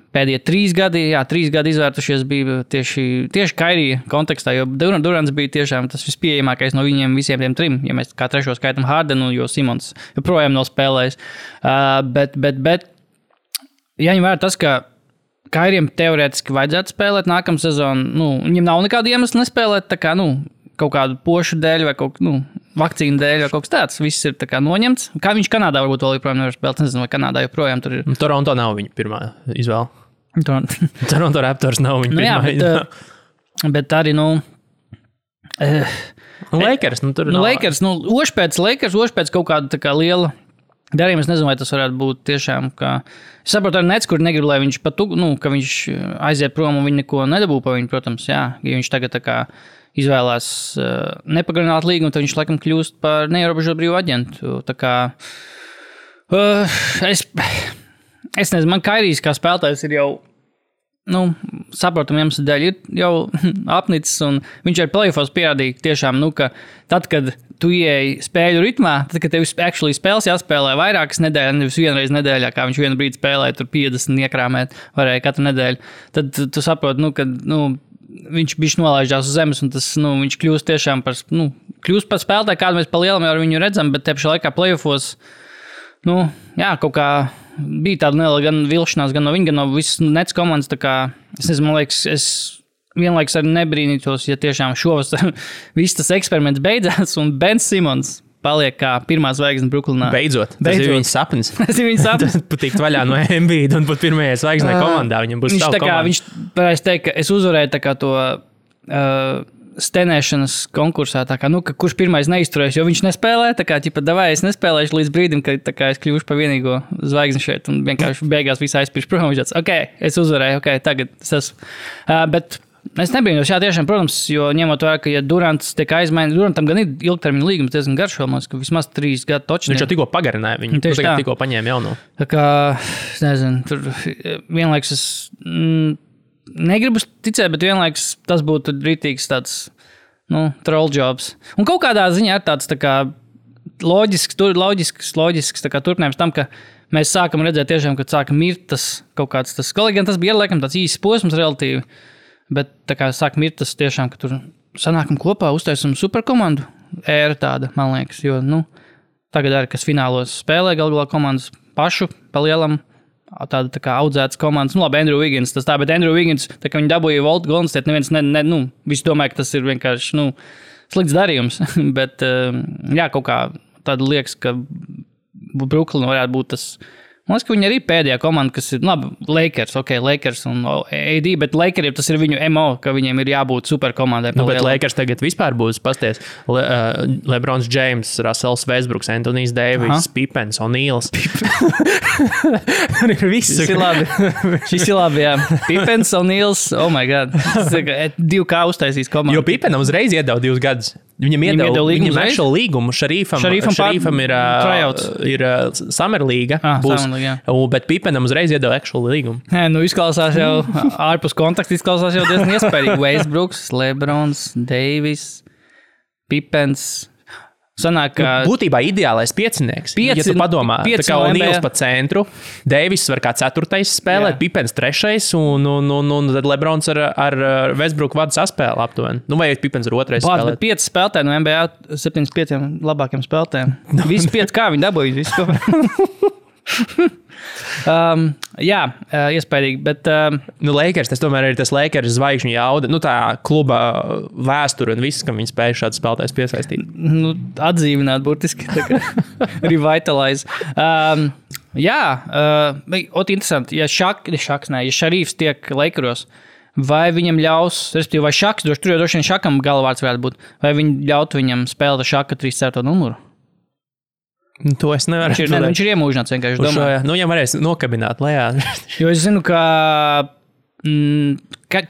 pēdējie 3 gadi, 3 gadi izvērtušies bija tieši Kairija kontekstā, jo Durants bija tiešām tas vispieejamākais no viņiem visiem tiem 3, ja mēs kā trešo skaitam Hardenu, jo Simons joprojām nav spēlējis. Bet jāņem vērā tas, ka Kairijam teorētiski vajadzētu spēlēt nākamā sezonu, viņam nav nekāda iemesla nespēlēt, tā kā, kaut kādu pošu dēļ vai vakcīnu dēļ vai kaut kas tāds. Viss ir tā kā noņemts. Kā viņš Kanādā varbūt vēl joprojām nevar spēlēt. Nezinu, vai Kanādā joprojām tur ir. Toronto nav viņa pirmā izvēle. Toronto Raptors nav viņa pirmā izvēle. Bet arī, Lakers, tur Lakers, oši pēc kaut kāda tā kā liela darījuma. Es nezinu, vai tas varētu būt tiešām, ka es saprotu arī Nets, kur negrib, lai viņš ka viņš aiziet prom un viņi neko nedabū pa viņu, protams, jā. Ja viņš tagad tā kā izvēlās nepagarināt līgumu, tad viņš laikam kļūst par neierobežotu brīvu aģentu. Tā kā es nezinu, man Kairijs kā spēlētājs ir jau saprotam iemeslu dēļ ir jau apnicis, un viņš ar playoffs pierādīja tiešām, ka tad, kad tu ieeji spēļu ritmā, tad, kad tev actually spēles jāspēlē vairākas nedēļas, nevis vienreiz nedēļā, kā viņš vienu brīdi spēlēja, tur 50 iekrāmēt varēja katru nedēļu, tad tu saproti, ka viņš bišķi nolaižās uz zemes, un tas, viņš kļūst tiešām par spēlētāju, kādu mēs pa lielam jau ar viņu redzam, bet te pašā laikā playoffos, kaut kā bija tāda neliela gan vilšanās, gan no viņa, gan no visas Nets komandas, tā kā, es nezinu, man liekas, es vienlaiks arī nebrīnītos, ja tiešām šovasar viss tas eksperiments beidzās, un Ben Simons paliek kā pirmā zvaigzne Brooklynā. Beidzot. Tas ir viņas sapnis. Tas ir viņas sapnis. Patikt vaļā no Embiida un būt pirmajai zvaigznei komandā. Viņam būs savu komandu. Viņš varēs teikt, ka es uzvarēju tā kā to stenēšanas konkursā, tā kā, ka kurš pirmais neizturēs, jo viņš nespēlē, tā kā, davai, es nespēlēšu līdz brīdim, kad tā kā es kļūšu par vienīgo zvaigzni šeit, un vienkārši beigās viss aizpirš prom, viņš tāds, es uzvarēju, tagad es esmu. Bet es nebrīnos, tiešām, protams, jo ņemot vērā, ka, ja Durants tiek aizmainīts, Durantam gan ir ilgtermiņa līgums diezgan garš, ka vismaz 3 gadu točni. Viņš jau tikko pagarināja viņu, tikko paņēma jauno. Tā kā, es nezinu, tur vienlaiks es negribu ticēt, bet vienlaiks tas būtu rītīgs tāds, troll jobs. Un kaut kādā ziņā ir tāds tā kā loģisks tā kā turpinājums tam, ka mēs sākam redzēt tiešām, kad sāka mirt tas kaut kāds tas, gan tas bija laikam tāds īsts posms relatīvi, bet tā kā sāk mirt tas tiešām, ka tur sanākam kopā, uztaisam superkomandu, ēra tāda, man liekas, jo, tagad arī, kas finālos spēlē galvā komandas pašu pa lielam, tāda tā kā audzētas komandas, labi, Andrew Wiggins, tas tā, bet Andrew Wiggins, tā kā viņi dabūja Volt Golden State, neviens, visi domāja, ka tas ir vienkārši, slikts darījums, bet, kaut kā tāda liekas, ka Brooklyn varētu būt tas. Man liekas, ka viņi arī pēdējā komanda, kas ir, Lakers un AD, bet Lakeriem tas ir viņu MO, ka viņiem ir jābūt superkomandai. Bet Lakers tagad vispār būs pasties. LeBrons James, Russells Westbrooks, Anthony's Davis, Pippens, O'Neals. Šis ir labi, jā. Pippens, O'Neals, oh my god. 2K uztaisīs komandu. Jo Pippenam uzreiz iedeva 2 gadus. Viņam iedeva līgumu uzreiz? Actual līgumu. Šarīfam ir Summer League, bet Pipenam uzreiz iedeva actual līgumu. Nē, nu izklausās jau ārpus kontakta, izklausās jau diezgan iespējīgi. Westbrooks, Lebrons, Davis, Pipens. Sanāk, būtībā ideālais piecinieks. Ja tu padomā, tā kā O'Neals pa centru, Davis var kā 4. spēlēt, Pipens 3. un tad Lebrons ar Westbrook vadu saspēli aptuveni. Nu, vai Pipens ar 2. spēlēt. Bet 5 spēlētāji no NBA 75 labākiem spēlētājiem. Visi 5 kā viņi dabūja, visu ko. Iespējīgi, bet... Lakers, tas tomēr ir tas Lakers zvaigžņu jauda, tā kluba vēsture un viss, kam viņi spēja šāds spēlētājs piesaistīt. Atdzīvināt burtiski, tā kā revitalize. Interesanti, ja Šarīfs tiek Lakeros, vai viņam ļaus, respektīvi, vai Šaks, tur jau droši vien Šakam galvārds varētu būt, vai viņi ļautu viņam spēlēt Šaka 3. numuru? To es nevaru. Viņš ir iemūžināts vienkārši domā. Viņam varēs nokabināt lejā. Jo es zinu, ka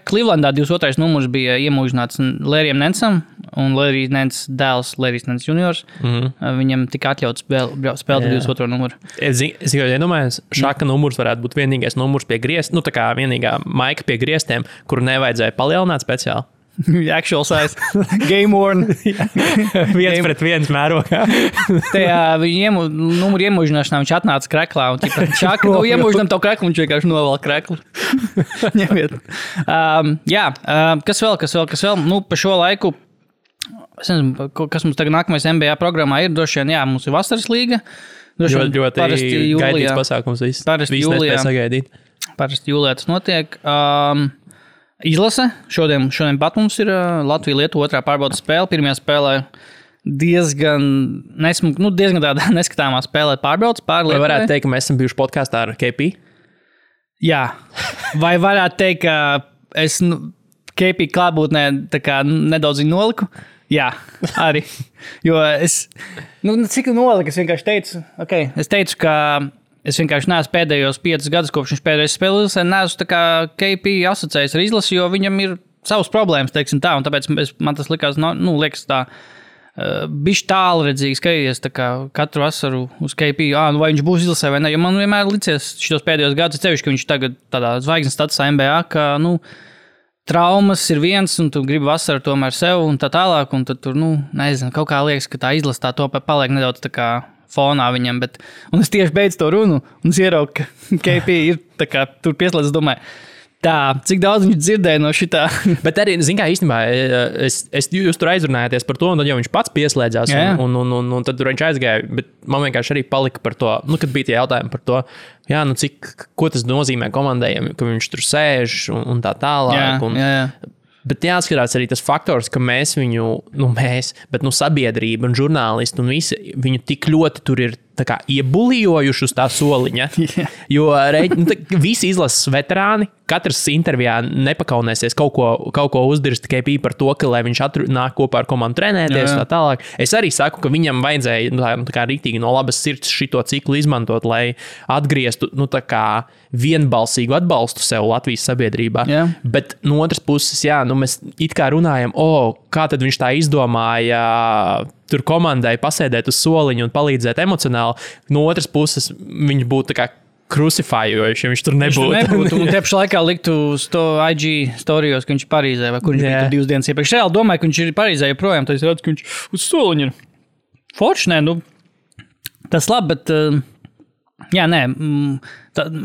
Clevelandā 22. numurs bija iemūžināts Lērijam Nensam, un Lērijas Nens dēls, Lērijas Nens juniors, viņam tika atļauts spēlēt 22. numuru. Es tikai iedomājos, Šaka numurs varētu būt vienīgais numurs pie griestiem, tā kā vienīgā maika pie griestiem, kuru nevajadzēja palielināt speciāli. Actual size. Game worn. 1-1 mērogā. Tajā numuru iemūžināšanā viņš atnāca kreklā un Šaka, iemūžinām to kreklu, viņš vienkārši novēl kreklu. Ņemiet. Kas vēl? Pa šo laiku, es nezinu, kas mums tagad nākamais NBA programmā ir, droši vien, mums ir vasaras līga. Ļoti gaidīts pasākums viss. Viss nespēja sagaidīt. Parasti jūlijā tas notiek. Izlase. Šodien pat mums ir Latvija-Lietuva 2. pārbaudas spēle. Pirmajā spēlē diezgan tāda neskatāmā spēlē pārbaudas pār Lietuvai. Vai varētu teikt, ka mēs esam bijuši podkāstā ar KP? Jā. Vai varētu teikt, ka es KP klātbūtnē nedaudz viņu noliku? Jā, arī. Jo es, cik noliku, es vienkārši teicu, es teicu, ka es vienkārši neesmu pēdējos 5 gadus, kopš viņš pēdējais spēlēs, neesmu tā kā KP asociējis ar izlasi, jo viņam ir savas problēmas, teiksim tā, un tāpēc man tas likās, liekas tā, bišķi tālredzīgi skatīties tā kā katru vasaru uz KP, vai viņš būs izlasē vai ne, jo man vienmēr licies šitos pēdējos gadus, cevišķi, ka viņš tagad tādā zvaigznes statusā NBA, ka, traumas ir viens, un tu gribi vasaru tomēr sev un tā tālāk, un tad tur, nezinu, kaut kā liekas, ka tā izlasa tā to paliek nedaudz tā kā fonā viņam, un es tieši beidzu to runu, un es ieraugu, ka KP ir tā kā tur pieslēdz, domāju, tā, cik daudz viņš dzirdēja no šitā. Bet arī, kā īstenībā, jūs tur aizrunājāties par to, un tad jau viņš pats pieslēdzās, un tad tur viņš aizgāja, bet man vienkārši arī palika par to, kad bija tie jautājumi par to, ko tas nozīmē komandējiem, ka viņš tur sēž un tā tālāk. Bet jāskatās arī tas faktors, ka mēs viņu, bet sabiedrība un žurnālisti un visi viņu tik ļoti tur ir tā kā iebulijojuši uz tā soliņa. Jo visi izlases veterāni, katrs intervijā nepakaunēsies kaut ko uzdirst tikai par to, ka lai viņš nāk kopā ar komandu trenēties tā tālāk. Es arī saku, ka viņam vajadzēja tā kā rīktīgi no labas sirds šito ciklu izmantot, lai atgrieztu tā kā vienbalsīgu atbalstu sev Latvijas sabiedrībā. Bet no otras puses, mēs it kā runājam, kā tad viņš tā izdomāja tur komandai pasēdēt uz soliņu un palīdzēt emocionāli. No otras puses, viņš būtu tā kā krusifējoši, ja viņš tur nebūtu. Un tieši laikā liktu uz to IG storijos, ka viņš ir Parīzē, vai kur viņš bija 2 dienas iepriekš. Reāli domāju, ka viņš ir Parīzē joprojām, tad es redzu, ka viņš uz soliņu ir. Forši, tas labi, bet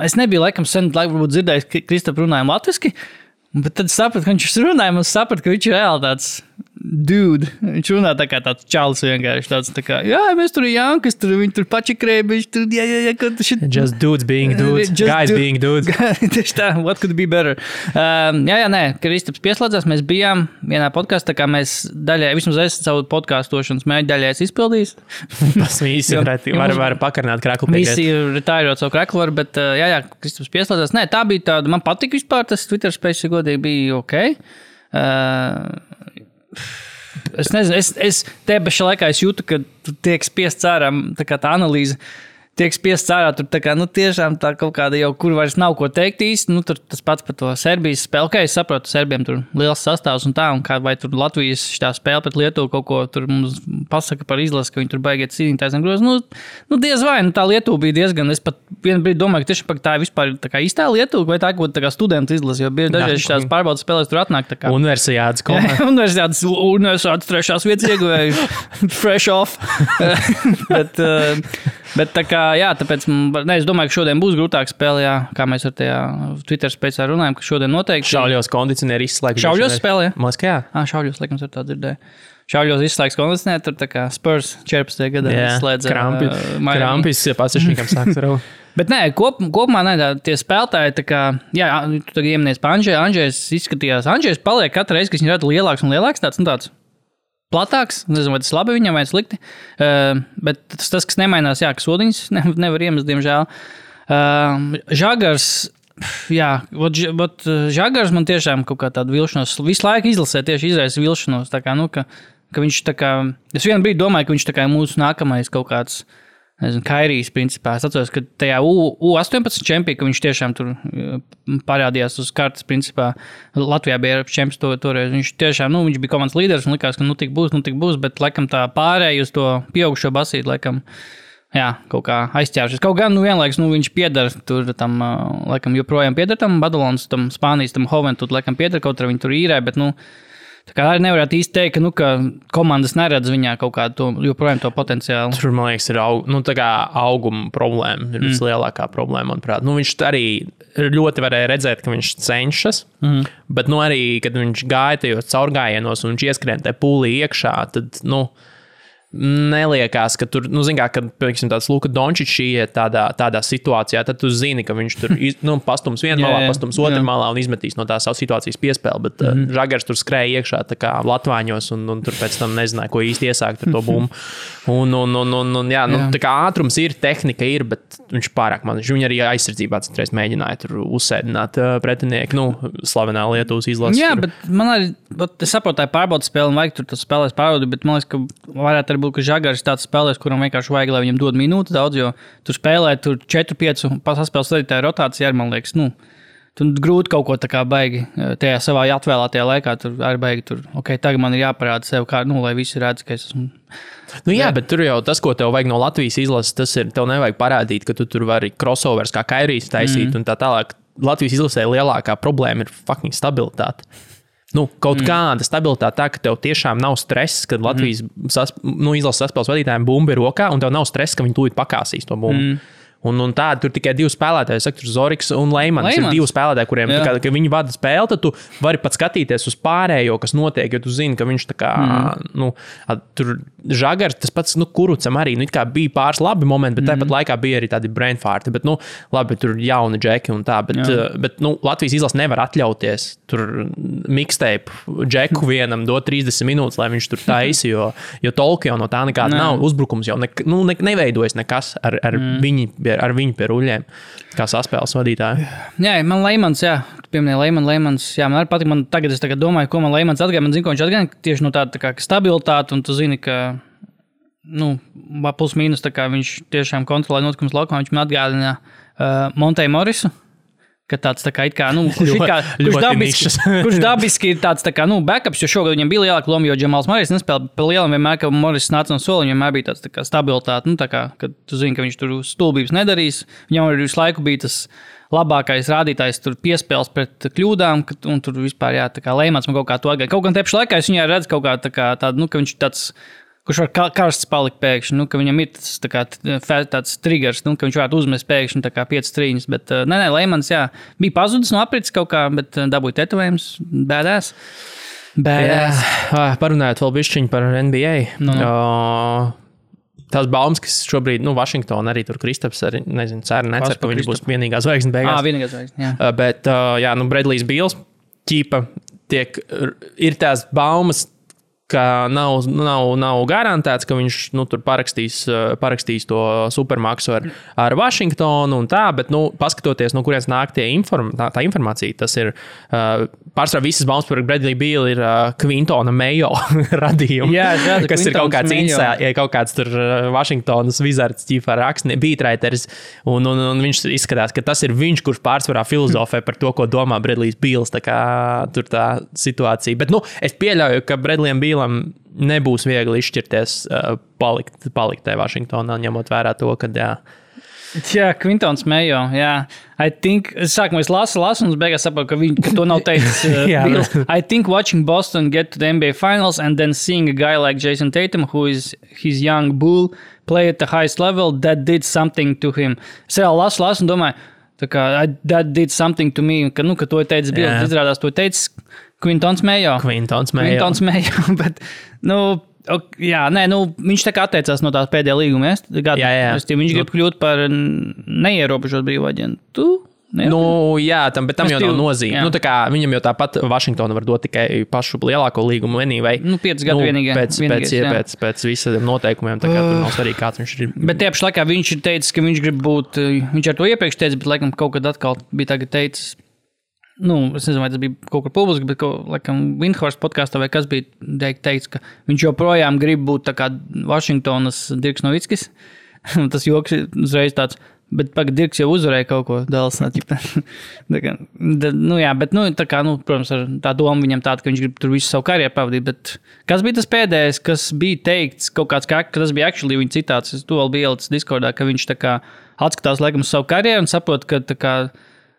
es nebiju laikam sen, varbūt dzirdējis, ka Kristap runājam latviski, bet tad sapratu, ka viņš runāja, un sapratu, ka viņš ir reāli tāds dude. Viņš runā tā kā tāds čalis vienkārši tāds tā kā, mēs tur ir Jankas, viņi tur pačikrēja, viņš tur, Just dudes being dudes, guys being dudes. Tieši tā, what could be better. Kristaps pieslēdzās, mēs bijām vienā podkastā, kā mēs daļai, vismaz es savu podcastošanas mēģi daļai izpildījis. Tas visi var pakarināt kreklu pie Visi ir retājot savu kreklu, bet Kristaps pieslēdzās. Nē, tā bija tāda, man patika vispār, tas Twitter space godīgi bija ok. Es nezinu, es te pašā laikā jūtu, ka tu tiek spiests ārā tā kā tā analīze. tiek spiests ārā, tur tā kā, tiešām tā kaut kāda jau, kur vairs nav ko teikt īsti, tur tas pats par to Serbijas spēli, kā es saprotu, Serbiem tur liels sastāvs un tā, un kā vai tur Latvijas šitā spēle pret Lietuvu kaut ko tur mums pasaka par izlasi, ka viņi tur baigiet cīnītājs un groz, diez vai, tā Lietuva bija diezgan, es pat vienu brīdi domāju, ka tieši tā vispār tā kā īstā Lietuva, vai tā kaut kā studentu izlasi, jo bieži dažreiz šitās pārbaudas spēlēs tur atnāk tā kā. Universiādes komanda. Universiādes 3. vietas ieguvēju, fresh off. Bet tā kā, jā, tāpēc, es domāju, ka šodien būs grūtāk spēle, jā, kā mēs ar tajā Twitter spēcā runājam, ka šodien noteikti. Šauļos kondicionieri izslēgt. Šauļos spēlē, jā? Moskajā? Šauļos, laikam, ar tā dzirdēju. Šauļos izslēgs kondicionieri, tur tā kā Spurs 14. gadā izslēdza. Krampis pasažniekam sāks raut. Bet nē, kopumā tie spēlētāji, tā kā, jā, tu tagad ieminies pa Andžejs izskatījās. Andžejs paliek katru reizi, kad viņš rada lielāks un lielāks tāds. Platāks, nezinu, vai tas labi viņam vai slikti, bet tas, kas nemainās, jā, ka sodiņas nevar iemest, diemžēl. Žagars, jā, Žagars man tiešām kaut kā tādu vilšanos, visu laiku izlasē tieši izraisa vilšanos, tā kā, ka viņš tā kā, es vienu brīdi domāju, ka viņš tā kā mūsu nākamais kaut kāds, nezinu, Kairijs principā. Es atceros, ka tajā U18 čempionā, ka viņš tiešām tur parādījās uz kartes, principā Latvijā bija Eiropas čempions toreiz. Viņš tiešām, viņš bija komandas līderis un likās, ka tik būs, bet laikam tā pārēja uz to pieaugušo basīti, laikam, jā, kaut kā aizķēršies. Kaut gan, vienlaiks, viņš pieder tur tam, laikam, joprojām pieder tam Badalonas, tam Spānijas, tam Hoventud, laikam pieder, kaut arī viņi tur īrē, bet, tā kā arī nevarētu īsti teikt, ka komandas neredz viņā kaut kādu joprojām to potenciālu. Tur, man liekas, ir auguma problēma. Ir vislielākā problēma, manuprāt. Viņš arī ļoti varēja redzēt, ka viņš cenšas, bet arī, kad viņš gāja tajos caurgājienos un viņš ieskrien te pūlī iekšā, tad, neliekās, ka tur, zin kā, kad, piemēram, tāds Luka Dončičs iet tādā situācijā, tad tu zini, ka viņš tur, pastums vienā malā, pastums otrā malā un izmetīs no tās savas situācijas piespēli, bet Žagars tur skrēja iekšā tā kā latvāņos un tur pēc tam nezināja, ko īsti iesākt ar to bumbu. Jā, tā kā ātrums ir, tehnika ir, bet viņš pārāk man, viņš arī aizsardzībā citreiz mēģināja tur uzsēdināt pretinieku, slavenā Lietuvas izlases. Jā, bet man arī, es saprotu, tā pārbaudas spēle un vajag tur tas spēlēs pārbaudi, bet man liekas, ka varētu arī būt, ka Žagars tāds spēlēs, kuram vienkārši vajag, lai viņam dod minūtes daudz, jo tur spēlē tur 4-5 pasaspēles vadītāja rotācija arī, man liekas, tur grūti kaut ko tā kā baigi tajā savā atvēlētajā laikā, tur arī baigi tur, tagad man ir jāparāda sev, kā, lai visi redz, ka es esmu. Jā, bet tur jau tas, ko tev vajag no Latvijas izlases, tas ir, tev nevajag parādīt, ka tu tur vari crossovers kā Kairijs taisīt un tā tālāk. Latvijas izlasē lielākā problēma ir fucking stabilitāte. Kaut kāda stabilitāte tā, ka tev tiešām nav stress, kad Latvijas izlases saspēles vadītājiem bumba ir rokā, un tev nav stress, ka viņi tūlīt pakāsīs to bumbu. Un tādi tur tikai divi spēlētāji, saka, tur Zoriks un Leimans. Ir divi spēlētāji, kuriem, kad viņi vada spēli, tad tu vari pat skatīties uz pārējo, kas notiek, jo tu zini, ka viņš tā kā, tur Žagars, tas pats, Kurucam arī, it kā bija pāris labi momenti, bet tāpat laikā bija arī tādi brainfarti, bet, labi, tur jauni džeki un tā, bet Latvijas izlase nevar atļauties tur mixtape džeku vienam dot 30 minūtes, lai viņš tur taisi, jo tolki jau no tā nekāda nav, uzbrukums jau neveidojas nekas ar viņu pie ruļļiem, kā saspēles vadītāji. Jā, man Leimans, tu pieminēji Leimans, man arī patīk, tagad es domāju, ko man Leimans atgāja, man zinu, ko viņš atgāja tieši no tāda tā kā stabilitāte, un tu zini, ka, plus mīnus, tā kā viņš tiešām kontrolē notikums laukumā, viņš man atgādina Montei Morisu, ka tāds tā kā, kurš dabiski ir tāds tā kā, backups, jo šogad viņam bija lielāka loma, jo Džamals Marijs nespēlē pa lielam vienmēr, ka Moris nāca no sola, viņam bija tāds tā kā stabilitāte, tā kā, kad tu zini, ka viņš tur stulbības nedarīs, viņam arī visu laiku bija tas labākais rādītājs tur piespēles pret kļūdām, un tur vispār, tā kā Leimans man kaut kā to atgāja. Kaut gan tepši laikā es viņā redzu kaut kā tā kā tādu, ka viņš tāds, kurš var karsts palikt pēkšņi, ka viņam ir tas tā kā, tāds triggers, ka viņš varētu uzmest pēkšņi tā kā 5 trīņas, bet Leimans, bija pazudis no aprits kaut kā, bet dabūja tetovējums, badass. Parunājot vēl bišķiņu par NBA. Tās baumas, kas šobrīd, Vašingtona arī tur Kristaps, arī, nezinu, necer, ka viņš būs vienīgā zvaigzne beigās. Vienīgā zvaigzne, jā. Bet, Bradlijs Bīls ķīpa ir tās baumas, ka nav garantēts, ka viņš tur parakstīs to supermaksu ar Vašingtonu un tā, bet, paskatoties, no kurienes nāk tā informācija, tas ir pārsvarā visas baumas par Bradley Beal ir Quintona Mayo radījumi, kas ir kaut kāds tur Vašingtonas Wizards ķīfā rakstnie, beatwriters, un viņš izskatās, ka tas ir viņš, kurš pārsvarā filozofē par to, ko domā Bradley Beals, tā kā tur tā situācija. Bet, es pieļauju, ka Bradleyam Bealam nebūs viegli izšķirties palikt tajā Vašingtonā, ņemot vērā to, ka, Jā, Quintons Mayo, jā. I think, sākumā es lasu, un beigās saprotu, ka to nav teicis. I think watching Boston get to the NBA Finals and then seeing a guy like Jason Tatum, who is his young bull, play at the highest level, that did something to him. Es vēl lasu un domāju, tā kā, that did something to me, ka to teicis Bills, izrādās to teicis Quintons Mayo, bet, viņš tā kā atteicās no tās pēdējā līguma, viņš grib kļūt par neierobežot brīvu aģentu. Bet tam jau nav nozīme. Tā kā viņam jau tāpat Vašingtona var dot tikai pašu lielāko līgumu vienībai. 5 gadu vienīgais. Pēc visiem noteikumiem, tā kā tur nav svarīgi, kāds viņš ir. Bet tie paši laikā viņš ir teicis, ka viņš grib būt, viņš ar to iepriekš teica, bet laikam kaut kad atkal bija tagad teicis, es nezinu, vai tas bija kaut kur publiski, bet laikam Windhorst podkāstā vai kas bija teicis, ka viņš joprojām grib būt tā kā Vašingtonas Dirks Novickis. Tas joks uzreiz tāds, bet Dirks jau uzvarēja kaut ko Dallas. Tā kā, protams, ar tā doma viņam tāda, ka viņš grib tur visu savu karjeru pavadīt, bet kas bija tas pēdējais, kas bija teikts, kaut kāds, ka tas bija actually viņa citāts, es to vēl biju ielicis Discordā, ka viņš tā kā atskatās laikam uz savu karjeru un saprot, ka tā kā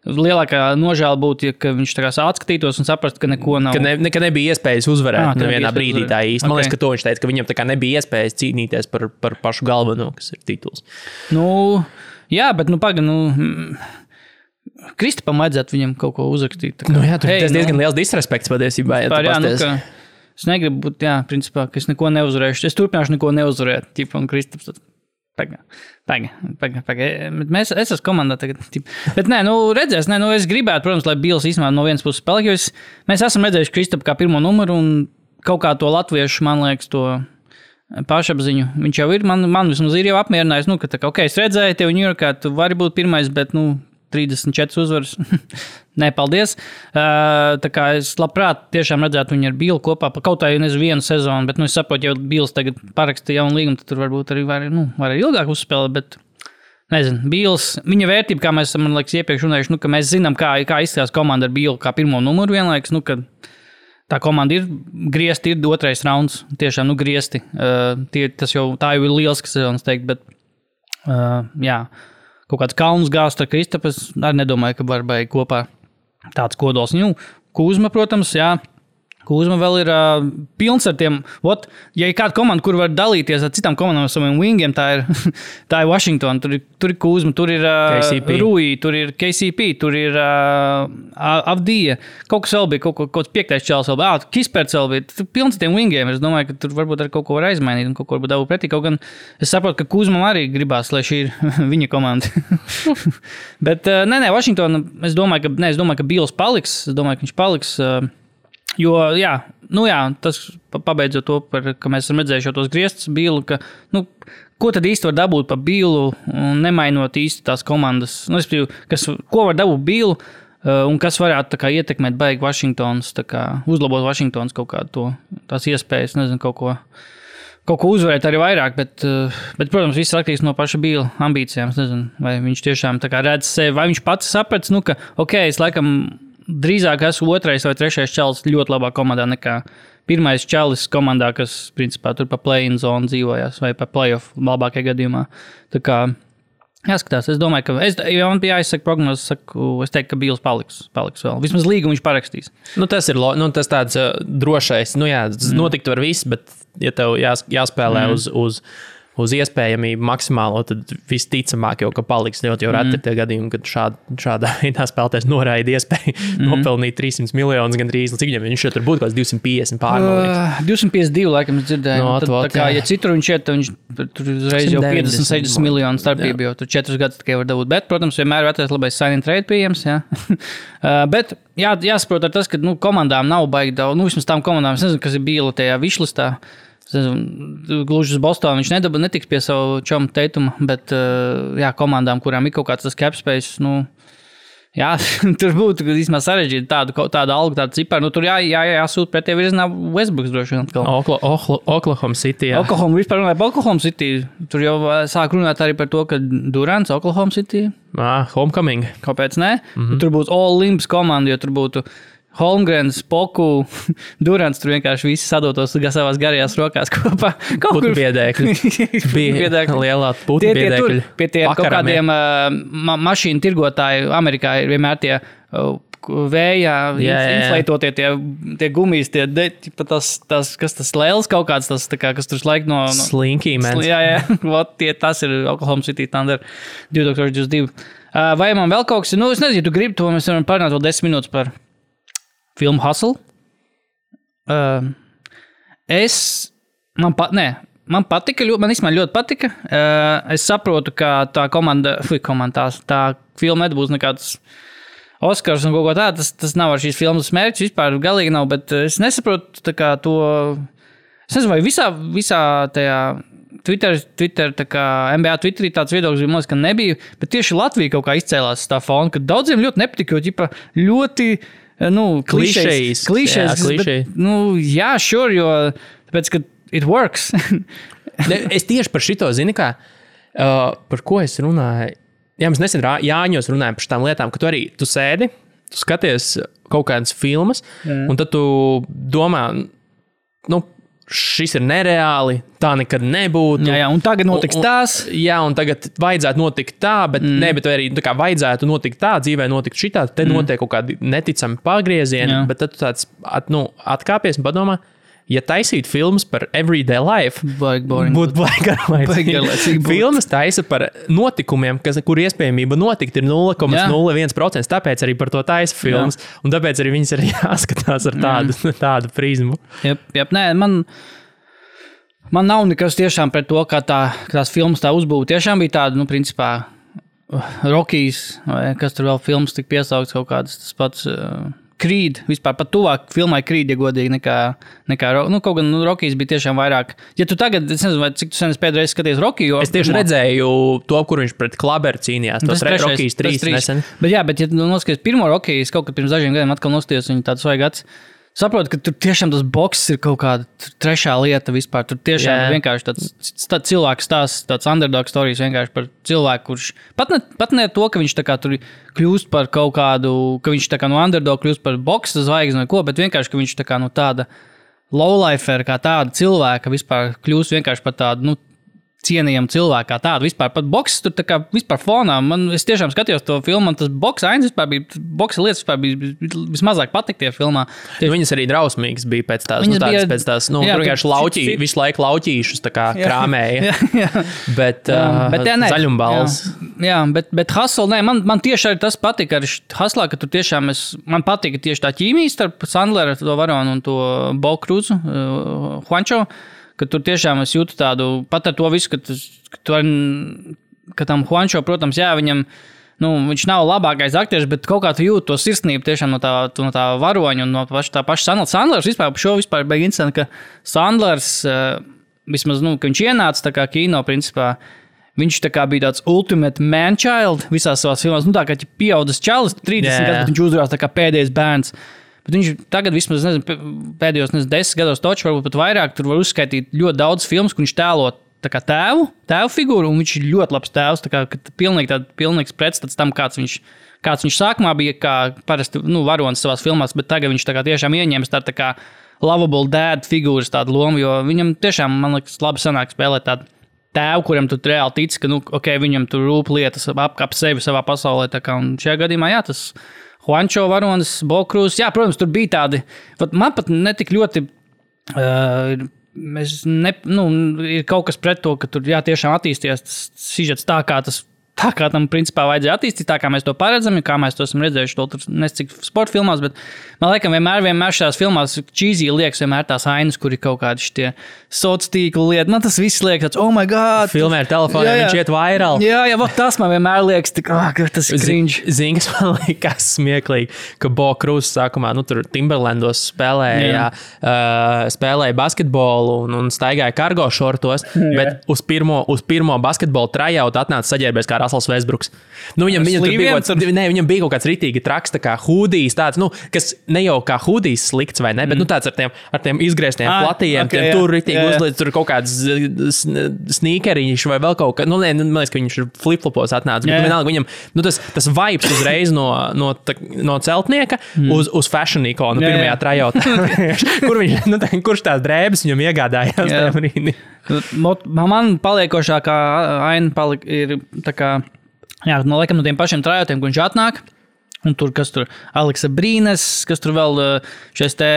lielākā nožēla būtu, ja viņš tā kā atskatītos un saprastu, ka neko nav. Ka nebija iespējas uzvarēt nevienā brīdī tā īsti. Man liekas, ka to viņš teica, ka viņam tā kā nebija iespējas cīnīties par pašu galveno, kas ir tituls. Jā, bet Kristapam vajadzētu viņam kaut ko uzrakstīt. Tas diezgan liels disrespekts patiesībā. Es negribu būt, principā, ka es neko neuzvarēšu. Es turpināšu neko neuzvarēt. Un Kristaps Es esmu komandā tagad. Bet redzēs, es gribētu, protams, lai Bills īstenībā no vienas puses spēlē, jo mēs esam redzējuši Kristapu kā pirmo numuru un kaut kā to latviešu, man liekas, to pašapziņu. Viņš jau ir, man vismaz ir jau apmierinājis, ka tā kā, es redzēju tevi Ņujorkā, tu vari būt pirmais, bet, 34 uzvaras. Nē, paldies. Tā kā es labprāt tiešām redzētu viņu ar Billu kopā, kaut tā, vienu sezonu, bet, es saprotu, ja Bills tagad paraksta jaunu līgumu, tad tur varbūt arī var ilgāk uzspēlēt, bet, nezinu, Bills, viņa vērtība, kā mēs esam, man liekas, iepriekš runājuši, ka mēs zinām, kā izskatās komanda ar Billu kā pirmo numuru vienlaikus, ka tā komanda ir griezti, ir 2. rauns, tiešām, griezti. Tā jau ir lieliska sezonas teikt, bet, kaut kāds kalns gāzt ar Kristapu, es arī nedomāju, ka var baigi kopā tāds kodols. Kuzma, protams, Kuzma vēl ir pilns ar tiem, ja ir kāda komanda, kur var dalīties ar citām komandām ar saviem wingiem, tā ir Washington, tur ir Kuzma, tur ir Rui, tur ir KCP, tur ir Avdija, kaut kas vēl bija, kaut kāds 5. čels vēl bija, Kisperts vēl bija, tur pilns ar tiem wingiem, es domāju, ka tur varbūt ar kaut ko var aizmainīt un kaut ko varbūt dabūt pretī, kaut gan es saprotu, ka Kuzmam arī gribās, lai šī ir viņa komanda. Bet, Washington, es domāju, ka Bills paliks, ka viņš paliks, jo, tas pabeidzot to, ka mēs esam redzējuši tos griestus Billu, ka, ko tad īsti var dabūt par Billu, nemainot īsti tās komandas, ko var dabūt Billu, un kas varētu tā kā ietekmēt baigi Vašingtons, tā kā uzlabot Vašingtons kaut kādu tās iespējas, nezinu, kaut ko uzvarēt arī vairāk, bet, protams, viss atkarīgs no paša Billa ambīcijām, es nezinu, vai viņš tiešām tā kā redz sevi, vai viņš pats saprats, ka, es laikam drīzāk esmu 2. vai 3. čalis ļoti labā komandā nekā 1. čalis komandā, kas, principā, tur pa play-in zonu dzīvojās, vai pa play-off labākajā gadījumā. Tā kā, jāskatās, es domāju, ka, ja man bija jāizsaka prognozes, es teiktu, ka Bills paliks vēl. Vismaz līgumu viņš parakstīs. Tas ir, tas tāds drošais, notikt var viss, bet, ja tev jāspēlē uz uz iespējamību maksimālo, tad visticamāk jau, ka paliks ļoti jau reti tie gadījumi, kad šādā veidā spēlētājs noraida iespēju nopelnīt 300 miljonus gandrīz. Cik viņam viņš jau tur būtu kaut kāds 250 pārmalieks? 252, laikam, es dzirdēju. No, tad, tā kā, ja citur viņš iet, tad viņš tur uzreiz jau 50-60 miljonu starpību, jo tur 4 gadus tikai var dabūt. Bet, protams, vienmēr ir atrast labais sign and trade pieejams, jā. Bet jāsaprot ar tas, ka komandām nav baigi daudz, vismaz tām komandām, es nezinu, kas ir bija tajā višlistā. Gluži uz Bostonu viņš netiks pie savu čomu Teituma, bet komandām, kurām ir kaut kāds tas cap space, tur būtu īstenībā sarežģīti tādu algu, tādu ciparu. Tur jāsūt pretī virzienā Westbrooks droši vien. Oklahoma City, jā. Vispār runāja par Oklahoma City. Tur jau sāk runāt arī par to, ka Durants Oklahoma City. Homecoming. Kāpēc ne? Tur būtu All Limbs komanda, jo tur būtu Holmgrens, Poku, Durants, tur vienkārši visi sadotos savās garajās rokās kopā. Būtu biedēkļi. Bija lielā būtu biedēkļi. Pie tiem kaut kādiem mašīnu tirgotāju Amerikā ir vienmēr tie vējā, inflētotie tie gumijas, kas tas lēls kaut kāds, tas, kas tur laik no... Slinky, man. Jā, tas ir Oklahoma City Thunder 2022. Vai man vēl kaut kas ir? Es nezinu, tu gribi to, mēs varam parunāt vēl 10 minūtes par filmu Hustle. Man patika, man ļoti patika. Es saprotu, ka tā tā filma nebūs nekāds Oskars un kaut ko tā. Tas nav ar šīs filmas mērķis, vispār galīgi nav, bet es nesaprotu tā kā to... Es nezinu, vai visā tajā Twitter tā kā NBA Twitterī tāds viedoklis bija, ka nebija, bet tieši Latvija kaut kā izcēlās tā fona, ka daudziem ļoti nepatika, jo ļoti... klišejs. Bet, sure, jo tāpēc, ka it works. Es tieši par šito zinu, kā, par ko es runāju. Jā, mēs nesen Jāņos runājam par šitām lietām, ka tu sēdi, tu skaties kaut kādas filmas, un tad tu domā, šis ir nereāli, tā nekad nebūtu. Jā, un tagad notiks tās. Jā, un tagad vajadzētu notikt tā, bet arī tā kā vajadzētu notikt tā, dzīvē notikt šitā, te notiek kaut kādi neticami pagriezieni, bet tad tu tāds atkāpies un padomā, ja taisīt filmas par everyday life, būtu baigi. Filmas taisa par notikumiem, kur iespējamība notikt ir 0,01%, tāpēc arī par to taisa filmas, un tāpēc arī viņas ir jāskatās ar tādu prizmu. Jep, nē, man nav nekas tiešām pret to, kā tās filmas tā uzbūva. Tiešām bija tāda, principā, Rockies, vai kas tur vēl filmas tik piesaukts kaut kādas, tas pats... Creed, vispār pat tuvāk filmai Creed, ja godīgi, nekā kaut gan Rockies bija tiešām vairāk. Ja tu tagad, es nezinu, vai cik tu sen pēdējais skaties Rocky, jo... Es tieši redzēju to, kur viņš pret Klaberu cīnījās, tos Rockies 3 nesen. Bet jā, ja tu noskaties pirmo Rockies, kaut kad pirms dažiem gadiem atkal nostājos viņu tāds svaigads, saprotu, ka tur tiešām tas boks ir kaut kāda trešā lieta vispār. Tur tiešām vienkārši tāds cilvēks stāsts, tāds underdog stories vienkārši par cilvēku, kurš pat ne to, ka viņš tā kā tur kļūst par kaut kādu, ka viņš tā kā no underdog kļūst par boksa zvaigzni vai ko, bet vienkārši, ka viņš tā kā no tāda lowlifer, kā tāda cilvēka vispār kļūst vienkārši par tādu, cienījama cilvēka kā tāda. Vispār pat boks tur tā kā vispār fonā. Es tiešām skatījos to filmu, un tas boksa ains vispār bija, boksa lietas vispār bija vismazāk patik tie filmā. Viņas arī drausmīgas bija pēc tās, tur vienkārši visu laiku lauķīšus tā kā krāmēja. Bet zaļumbals. Jā, bet Hustle, nē, man tieši arī tas patika ar Hustlā, ka tur tiešām man patika tieši tā ķīmija starp Sandleru, to varonu un to Bo Cruzu, Juancho, ka tur tiešām es jūtu tādu, pat ar to visu, ka tam Juancho, protams, jā, viņam, viņš nav labākais aktieris, bet kaut kā tu jūti to sirsnību tiešām no tā varoņa un no tā paša Sandlers. Sandlers vispār bija interesanti, ka Sandlers, vismaz, ka viņš ienāca tā kā kino, principā, viņš tā kā bija tāds ultimate man-child visās savās filmās, tā kā pieaudzis čalis, 30 gadus, bet viņš uzrās tā kā pēdējais bērns. Bet viņš tagad vismaz, pēdējos 10 gados toču, varbūt pat vairāk, tur var uzskaitīt ļoti daudz filmas, kur viņš tēlo tā kā tēvu figūru, un viņš ir ļoti labs tēvs, tā kā pilnīgs pretstats tam, kāds viņš sākumā bija, kā parasti, varonis savās filmās, bet tagad viņš tā kā tiešām ieņems tā kā lovable dad figūras tādu lomu, jo viņam tiešām, man liekas, labi sanāk spēlēt tādu tēvu, kuram tu reāli tici, ka viņam tur rūp lietas apkap sevi savā pasaulē, tā kā, un šajā gadījumā, jā, tas Juancho varonis, Bo Cruz, jā, protams, tur bija tādi, man pat netik ļoti ir kaut kas pret to, ka tur tiešām attīstījās tas sižets tā, kā tam principā vajadzēja attīstīt, tā kā mēs to paredzam, kā mēs to esam redzējuši, to tur nescik sporta filmās, bet man liekas, vienmēr šajās filmās cheesy liekas vienmēr tās ainas, kur ir kaut kādi šitie soc tīklu lieti. Man tas viss liekas, oh my god! Filmē ar telefonu, viņš iet viral. Jā, tas man vienmēr liekas, tas ir cringe. Zini, kas man liekas smieklīgi, ka Bo Cruz sākumā, tur Timberlandos spēlēja basketbolu un staigāja kargo šortos, bet uz pirmo basketbolu tryout atnāca saģērbies kā Russells Westbrooks. Viņam bija kaut kāds ritīgi traks, tā kā hūdijs tāds, kas ne jau kā hūdijs slikts vai ne, bet tāds ar tiem izgrieztiem platījiem, tur ritīgi uzliec, tur kaut kāds sneakeriņš vai vēl kaut kā, man liekas, ka viņš ir flip-flopos atnāca, bet vienalga viņam, tas vibes uzreiz no celtnieka uz fashion ikonu pirmajā tryoutā. Kurš tās drēbes viņam iegādājās tajā brīdī? Man paliekošākā aina ir tā kā, no tiem pašiem tryoutiem, kur viņš atnāk, un tur, kas tur Aleksa Brīnes, kas tur vēl šais te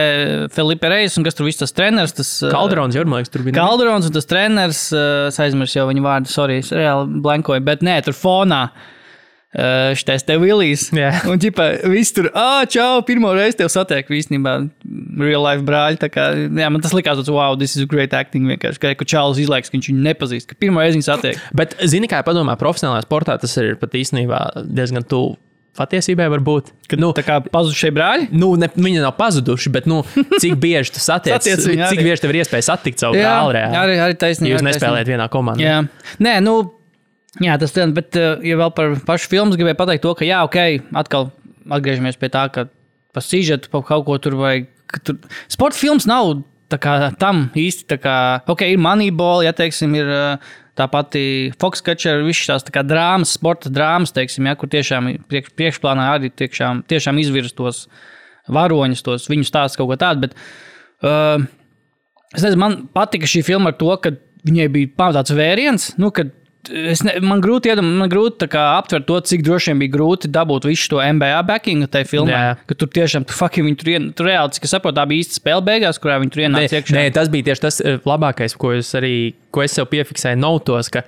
Felipe Reis, un kas tur viss tas treneris, tas... Calderons, jau, man liekas, tur bija. Calderons un tas treneris, es aizmirsu jau viņu vārdu, sorry, es reāli blankoju, bet nē, tur fonā. Šitais te Willijs. Yeah. Un ģipa, viss tur, čau, pirmo reizi tev satieku īstenībā real life brāļi. Tā kā, man tas likās, wow, this is great acting vienkārši. Ka Čārlis izlaiks, ka viņš viņu nepazīst, ka pirmo reizi viņu satiek. Bet, zini, kā padomā, profesionālajā sportā tas ir pat īstenībā diezgan tuvu patiesībai varbūt. Tā kā pazudušie brāļi? Viņi nav pazuduši, bet, cik bieži tu satiec, cik bieži tev ir iespēja satikt savu brāli reāli. Arī taisnība. Jūs nespēlējat vienā komandā. Jā. Nē, jā, tas ir, bet, ja vēl par pašu filmas gribēju pateikt to, ka jā, atkal atgriežamies pie tā, ka pa sižetu, pa kaut ko tur vajag. Sporta filmas nav tā kā tam īsti, tā kā, ir Moneyball, ja, teiksim, ir tā pati Foxcatcher, viss tās tā kā drāmas, sporta drāmas, teiksim, ja, kur tiešām priekšplānā arī tiešām izvirz tos varoņus, viņu stāsts kaut ko tādu, bet es nezinu, man patika šī filma ar to, ka viņai bija pamatāts vēriens, kad man grūti tā kā aptvert to, cik droši vien bija grūti dabūt visu to NBA backingu tai filmai, ka tur tiešām, viņi tur reāli, cik es saprotu, tā bija īsta spēle beigās, kurā viņi tur ienāca iekšā. Nē, tas bija tieši tas labākais, ko es sev piefiksēju notos, ka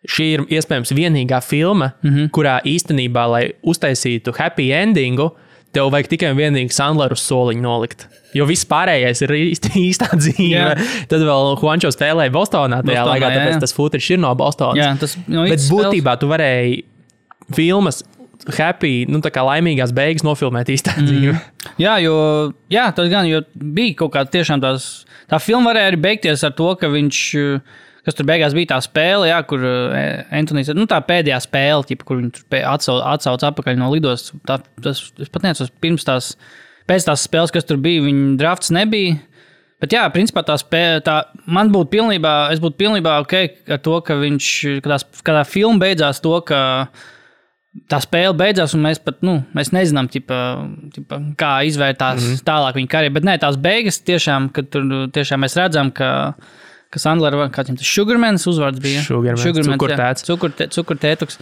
šī ir iespējams vienīgā filma, kurā īstenībā, lai uztaisītu happy endingu, tev vajag tikai un vienīgi Sandleru soliņu nolikt. Jo viss pārējais ir īstā dzīve. Tad vēl Juancho spēlēja Bostonā tajā laikā, tāpēc tas footage ir no Bostonas. Bet būtībā tu varēji filmas happy, tā kā laimīgās beigas nofilmēt īstā dzīve. Jā, tas gan, jo bija kaut kā tiešām tā filma varēja arī beigties ar to, ka viņš... Kas tur beigās bija tā spēle, kur Antonijs, tā pēdējā spēle, kur viņi tur atsauc atpakaļ no lidos. Es pat neatceros, pēc tās spēles, kas tur bija, viņa drafts nebija. Bet jā, principā es būtu pilnībā ok ar to, ka kad tā filma beidzās to, ka tā spēle beidzās, un mēs pat, mēs nezinām, kā izvērtās tālāk viņa karjeru. Bet nē, tās beigas tiešām, kad tur tiešām mēs redzam, ka Sandler, kāds viņam tas Sugarmans uzvārds bija? Sugarmans, cukurtētuks.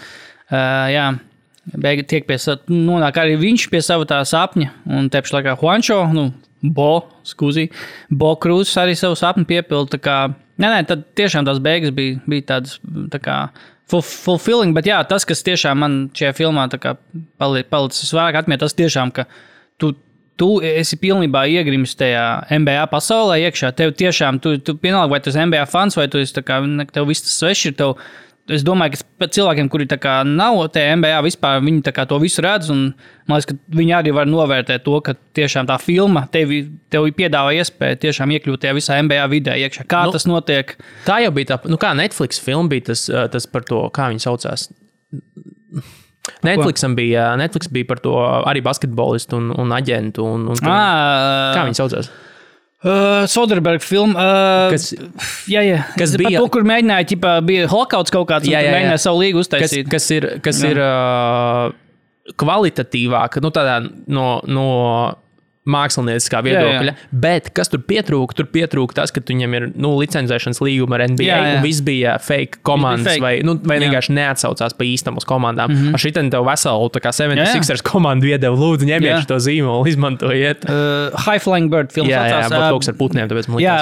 Jā, beigi tiek nonāk arī viņš pie sava tā sapņa, un tepši laikā Juancho, Bo Cruz arī savu sapni piepilda, tā kā, tad tiešām tās beigas bija tādas, tā kā, fulfilling, bet jā, tas, kas tiešām man šajā filmā tā kā palicis vairāk atmiet, tas tiešām, ka tu esi pilnībā iegrimis tajā NBA pasaulē iekšā. Tev tiešām, tu vienalga, vai tu esi NBA fans, vai tu esi tā kā, tev viss tas svešs ir tev. Es domāju, ka cilvēkiem, kuri tā kā nav tajā NBA vispār, viņi tā kā to visu redz, un man liekas, ka viņi arī var novērtēt to, ka tiešām tā filma tev piedāvā iespēju tiešām iekļūt tajā visā NBA vidē iekšā. Kā tas notiek? Tā jau bija tā, kā Netflix filma bija tas par to, kā viņi saucās. Netflix bija par to arī basketbolistu un aģentu. Kā viņi saucās? Soderberga filma. Kas bija? Par to, kur mēģināja, bija holokauts kaut kāds, un mēģināja savu līgu uztaisīt. Kas ir kvalitatīvāk, tādā no mākslinieckā viedokļa. Bet kas tur pietrūka? Tur pietrūka tas, ka viņam ir licencēšanas līguma ar NBA, un viss bija fake komandas, vai vienkārši neatsaucās pa īstam uz komandām. Ar šitien tev veselu, tā kā 76ers komandu iedeva, lūdzu, ņemiet šo zīmolu, izmantojiet. High Flying Bird filmas jā, bet kaut kas ar putniem, tāpēc man likās. Jā,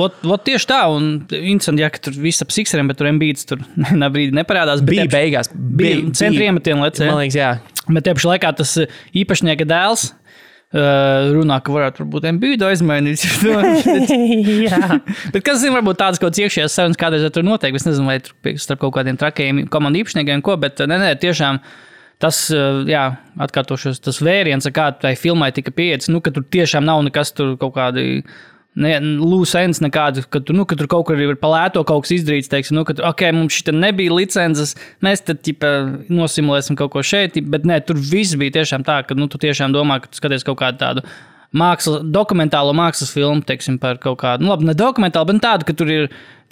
bet tieši tā, un interesanti, ka tur viss ap Sixeriem, bet tur Embiids tur brīdī neparādās. Bija beigās. Bija centri iemetieni, man liekas, jā. Bet tieši laikā tas īpašnieka dēls runā, ka varētu būt Embiidu aizmainīt. Bet kas zina, varbūt tādas kaut kāds iekšējās sarunas kādreiz tur notiek. Es nezinu, vai tur starp kaut kādiem trakajiem komandu īpašniekiem ko, bet nē, tiešām tas, atkārtošos, tas vēriens, kā tai filmai tika pieejas, ka tur tiešām nav nekas tur kaut kādi loose ends nekādu, ka tur kaut kur ir palēto kaut kas izdarīts, teiksim, ka mums šita nebija licences, mēs tad nosimulēsim kaut ko šeit, bet nē, tur viss bija tiešām tā, ka tu tiešām domā, ka tu skaties kaut kādu tādu dokumentālo mākslas filmu, teiksim, par kaut kādu, labi, ne dokumentālu, bet tādu, ka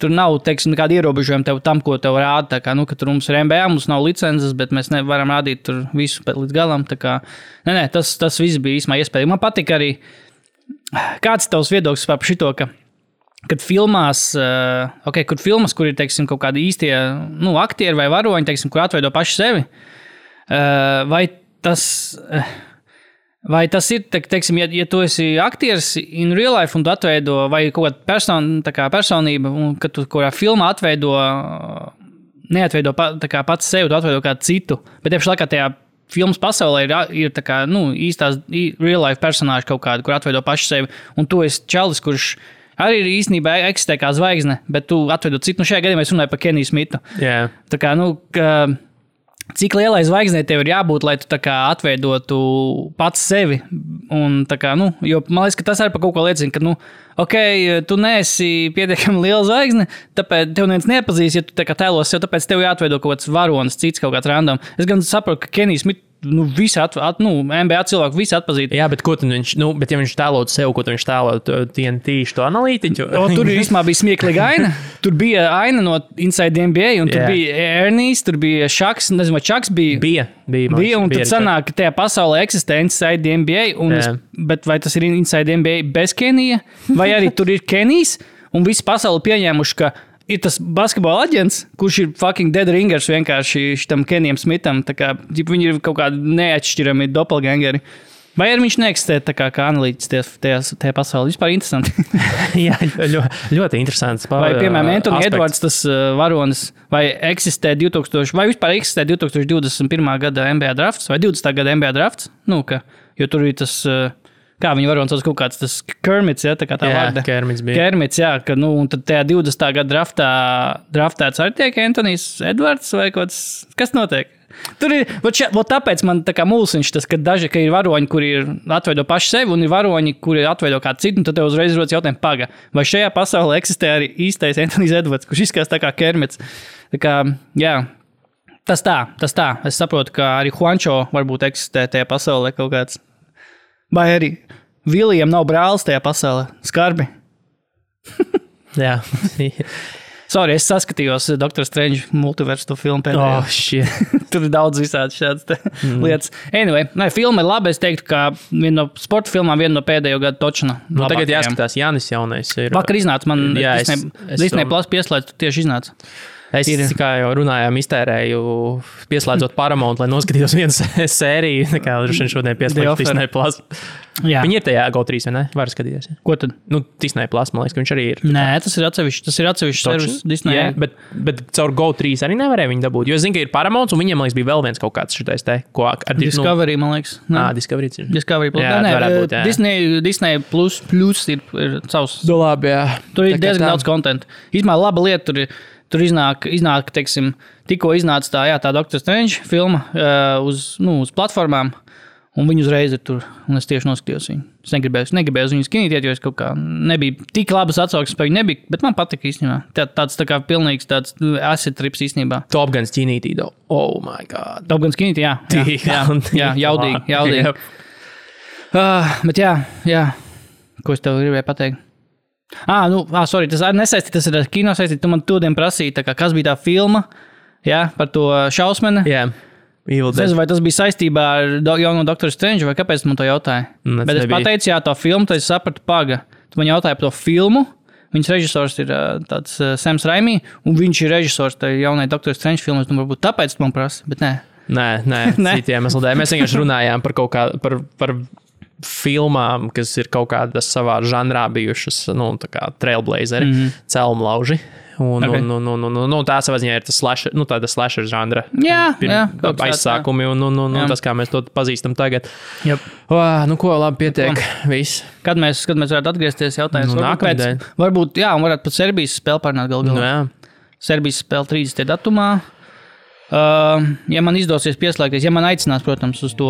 tur nav, teiksim, nekāda ierobežojuma tev tam, ko tev rāda, tā kā, ka tur mums ir NBA, mums nav licences, bet mēs nevaram rādīt tur visu līdz galam, tā kā, nē, tas viss bija īsmā iespējams. Man patika arī, kāds ir tavs viedoklis par šito, kad filmās, kur ir, teiksim, kaut kādi īstie, aktieri vai varoņi, teiksim, kur atveido paši sevi, vai tas ir, teiksim, ja tu esi aktieris in real life un tu atveido, vai kaut kāda personība, un kad tu kurā filmā neatveido pats sevi, tu atveido kādu citu, bet tieši laikā tajā filmas pasaulē ir tā kā, īstās real life personāži kaut kādi, kur atveido paši sevi, un tu esi čalis, kurš arī ir īstenībā eksistē kā zvaigzne, bet tu atveido citu. Šajā gadījumā es runāju par Keniju Smitu. Yeah. Tā kā, cik lielai zvaigznei tev ir jābūt, lai tu tā kā atveidotu pats sevi, un tā kā, jo man liekas, ka tas arī par kaut ko liecina, ka, tu neesi pietiekami liela zvaigzne, tāpēc tev neviens neapazīs, ja tu tā kā tēlos sev, tāpēc tev jāatveido kaut kāds varonis, cits kaut kāds random. Es gan saprotu, ka Kenijs Smits, visi NBA cilvēku visi atpazītu. Jā, bet ko tad viņš, bet ja viņš tēlot sev, ko viņš tēlot TNT, šo analītiķu? Tur īstenībā bija smieklīga aina. Tur bija aina no Inside NBA, un tur bija Ernijs, tur bija Šaks, nezinu, vai Šaks bija. Bija, un tad sanāk, ka tajā pasaulē eksistē Inside NBA, bet vai tas ir Inside NBA bez Kenija, vai arī tur ir Kenijs, un visi pasauli pieņēmuši, ka ir tas basketbola aģents, kurš ir fucking dead ringers vienkārši šitam Kenijam Smitam, tā kā viņi ir kaut kādi neatšķirami doppelgangeri. Vai arī viņš neeksistē tā kā analītiķis tajā pasaulē? Vispār interesanti. Jā, ļoti interesants. Vai, piemēram, Anthony Edwards, tas varonis, vai eksistē 2021. gada NBA drafts, vai 20. gada NBA drafts? Jo tur ir tas... Kā viņi varonis sauc kaut kāds tas Kermits, tā kā tā vārda. Kermits bija. Kermits, jā, un tad tajā 20. gada draftēts arī tiek Anthonijs Edwards vai kaut kas notiek? Tur ir, tāpēc man tā kā mulsiņš tas, ka ir varoņi, kuri atveido paši sevi, un ir varoņi, kuri atveido kādu citu, un tad tev uzreiz rodas jautājums, paga, vai šajā pasaulē eksistē arī īstais Anthonijs Edwards, kurš izskatās tā kā Kermits. Tā kā, jā, tas tā. Es saprotu, ka arī Juancho varbūt eksistē tajā pasaulē kaut kāds. Vai arī Vilijam nav brālis tajā pasaulē? Skarbi. Jā. Sorry, es saskatījos Dr. Strange multiversu filmu pēdējā. Tur ir daudz visādi šādas lietas. Anyway, filma ir laba. Es teiktu, ka viena no sporta filmām, viena no pēdējo gadu točna. Tagad jāskatās, Jānis jaunais ir. Vakar iznāca, man Disney Plus pieslēdz, tieši iznāca. Es, kā jau runājām, iztērēju, pieslēdzot Paramount, lai noskatītos vienu sēriju, kā šodien pieslēdz Disney Plus. Jā. Viņi ir tajā GO3, vai ne? Var skatīties. Ja? Ko tad? Disney Plus, man liekas, ka viņš arī ir. Nē, tas ir atsevišķs servis Disney. Jā, bet caur GO3 arī nevarēja viņi dabūt, jo es zinu, ka ir Paramount, un viņiem, man liekas, bija vēl viens kaut kāds šitais te, ko ar Discovery, man liekas. Discovery ir. Discovery Plus. Jā, varētu būt, jā. Disney Plus ir savs. Labi, jā. Tur ir diezgan daudz kontentu. Īsmā laba lieta tur iznāk, teiksim, tikko iznāca tā Dr. Strange filma uz platformām, un viņi uzreiz ir tur, un es tieši noskatījos viņu. Es negribēju uz viņu skinītiet, jo es kaut kā nebija tik labas atsauksmes par viņu nebija, bet man patika īstenībā. Tāds tā kā pilnīgs tāds acid trips īstenībā. Top Gun skinītī, oh my god. Top Gun skinītī, jā, jaudīgi. Bet jā, ko es tev gribēju pateikt? Sorry, tas arī nesaistīt, tas ir kino saistīt. Tu man todien prasīji, kas bija tā filma, jā, par to šausmeni. Jā. Evil Es nezinu, vai tas bija saistībā ar jauno Doktoru Strange, vai kāpēc tu man to jautāji? Bet es pateicu, jā, to filmu, tad es sapratu, paga. Tu man jautāji par to filmu. Viņas režisors ir tāds Sams Raimi, un viņš ir režisors tai jaunai Doktoru Strange filmu. Es domāju, varbūt tāpēc tu man prasi, bet nē. Nē, citiem iemesliem. Mēs vienkārši runājām par kaut kā, par filmām, kas ir kaut kādas savā žanrā bijušas, nu, tā kā trailblazeri, celmlauži. Un tā savā ziņā ir tas slasher, nu, tāda slasher žanra. Jā, aizsākumi un tas, kā mēs to pazīstam tagad. Yep. Nu, ko, labi, pietiek. Viss. Kad mēs varētu atgriezties jautājums? Nākamdien. Varbūt, jā, un varētu pat Serbijas spēli pārnāt galā. Jā. Serbijas spēle 30. datumā. Ja man izdosies pieslēgties, ja man aicinās, protams, uz to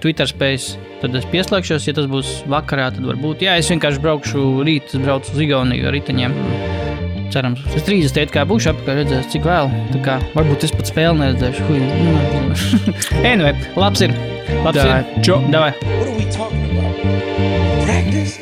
Twitter space, tad es pieslēgšos. Ja tas būs vakarā, tad varbūt. Jā, es vienkārši braukšu rīt, es braucu uz Igauniju ar riteņiem. Cerams, es 30. kā būšu apkārt redzēs, cik vēl. Tā kā varbūt es pat spēli neredzēšu. Anyway, labs ir. Davai. Davai. What are we talking about? Practice?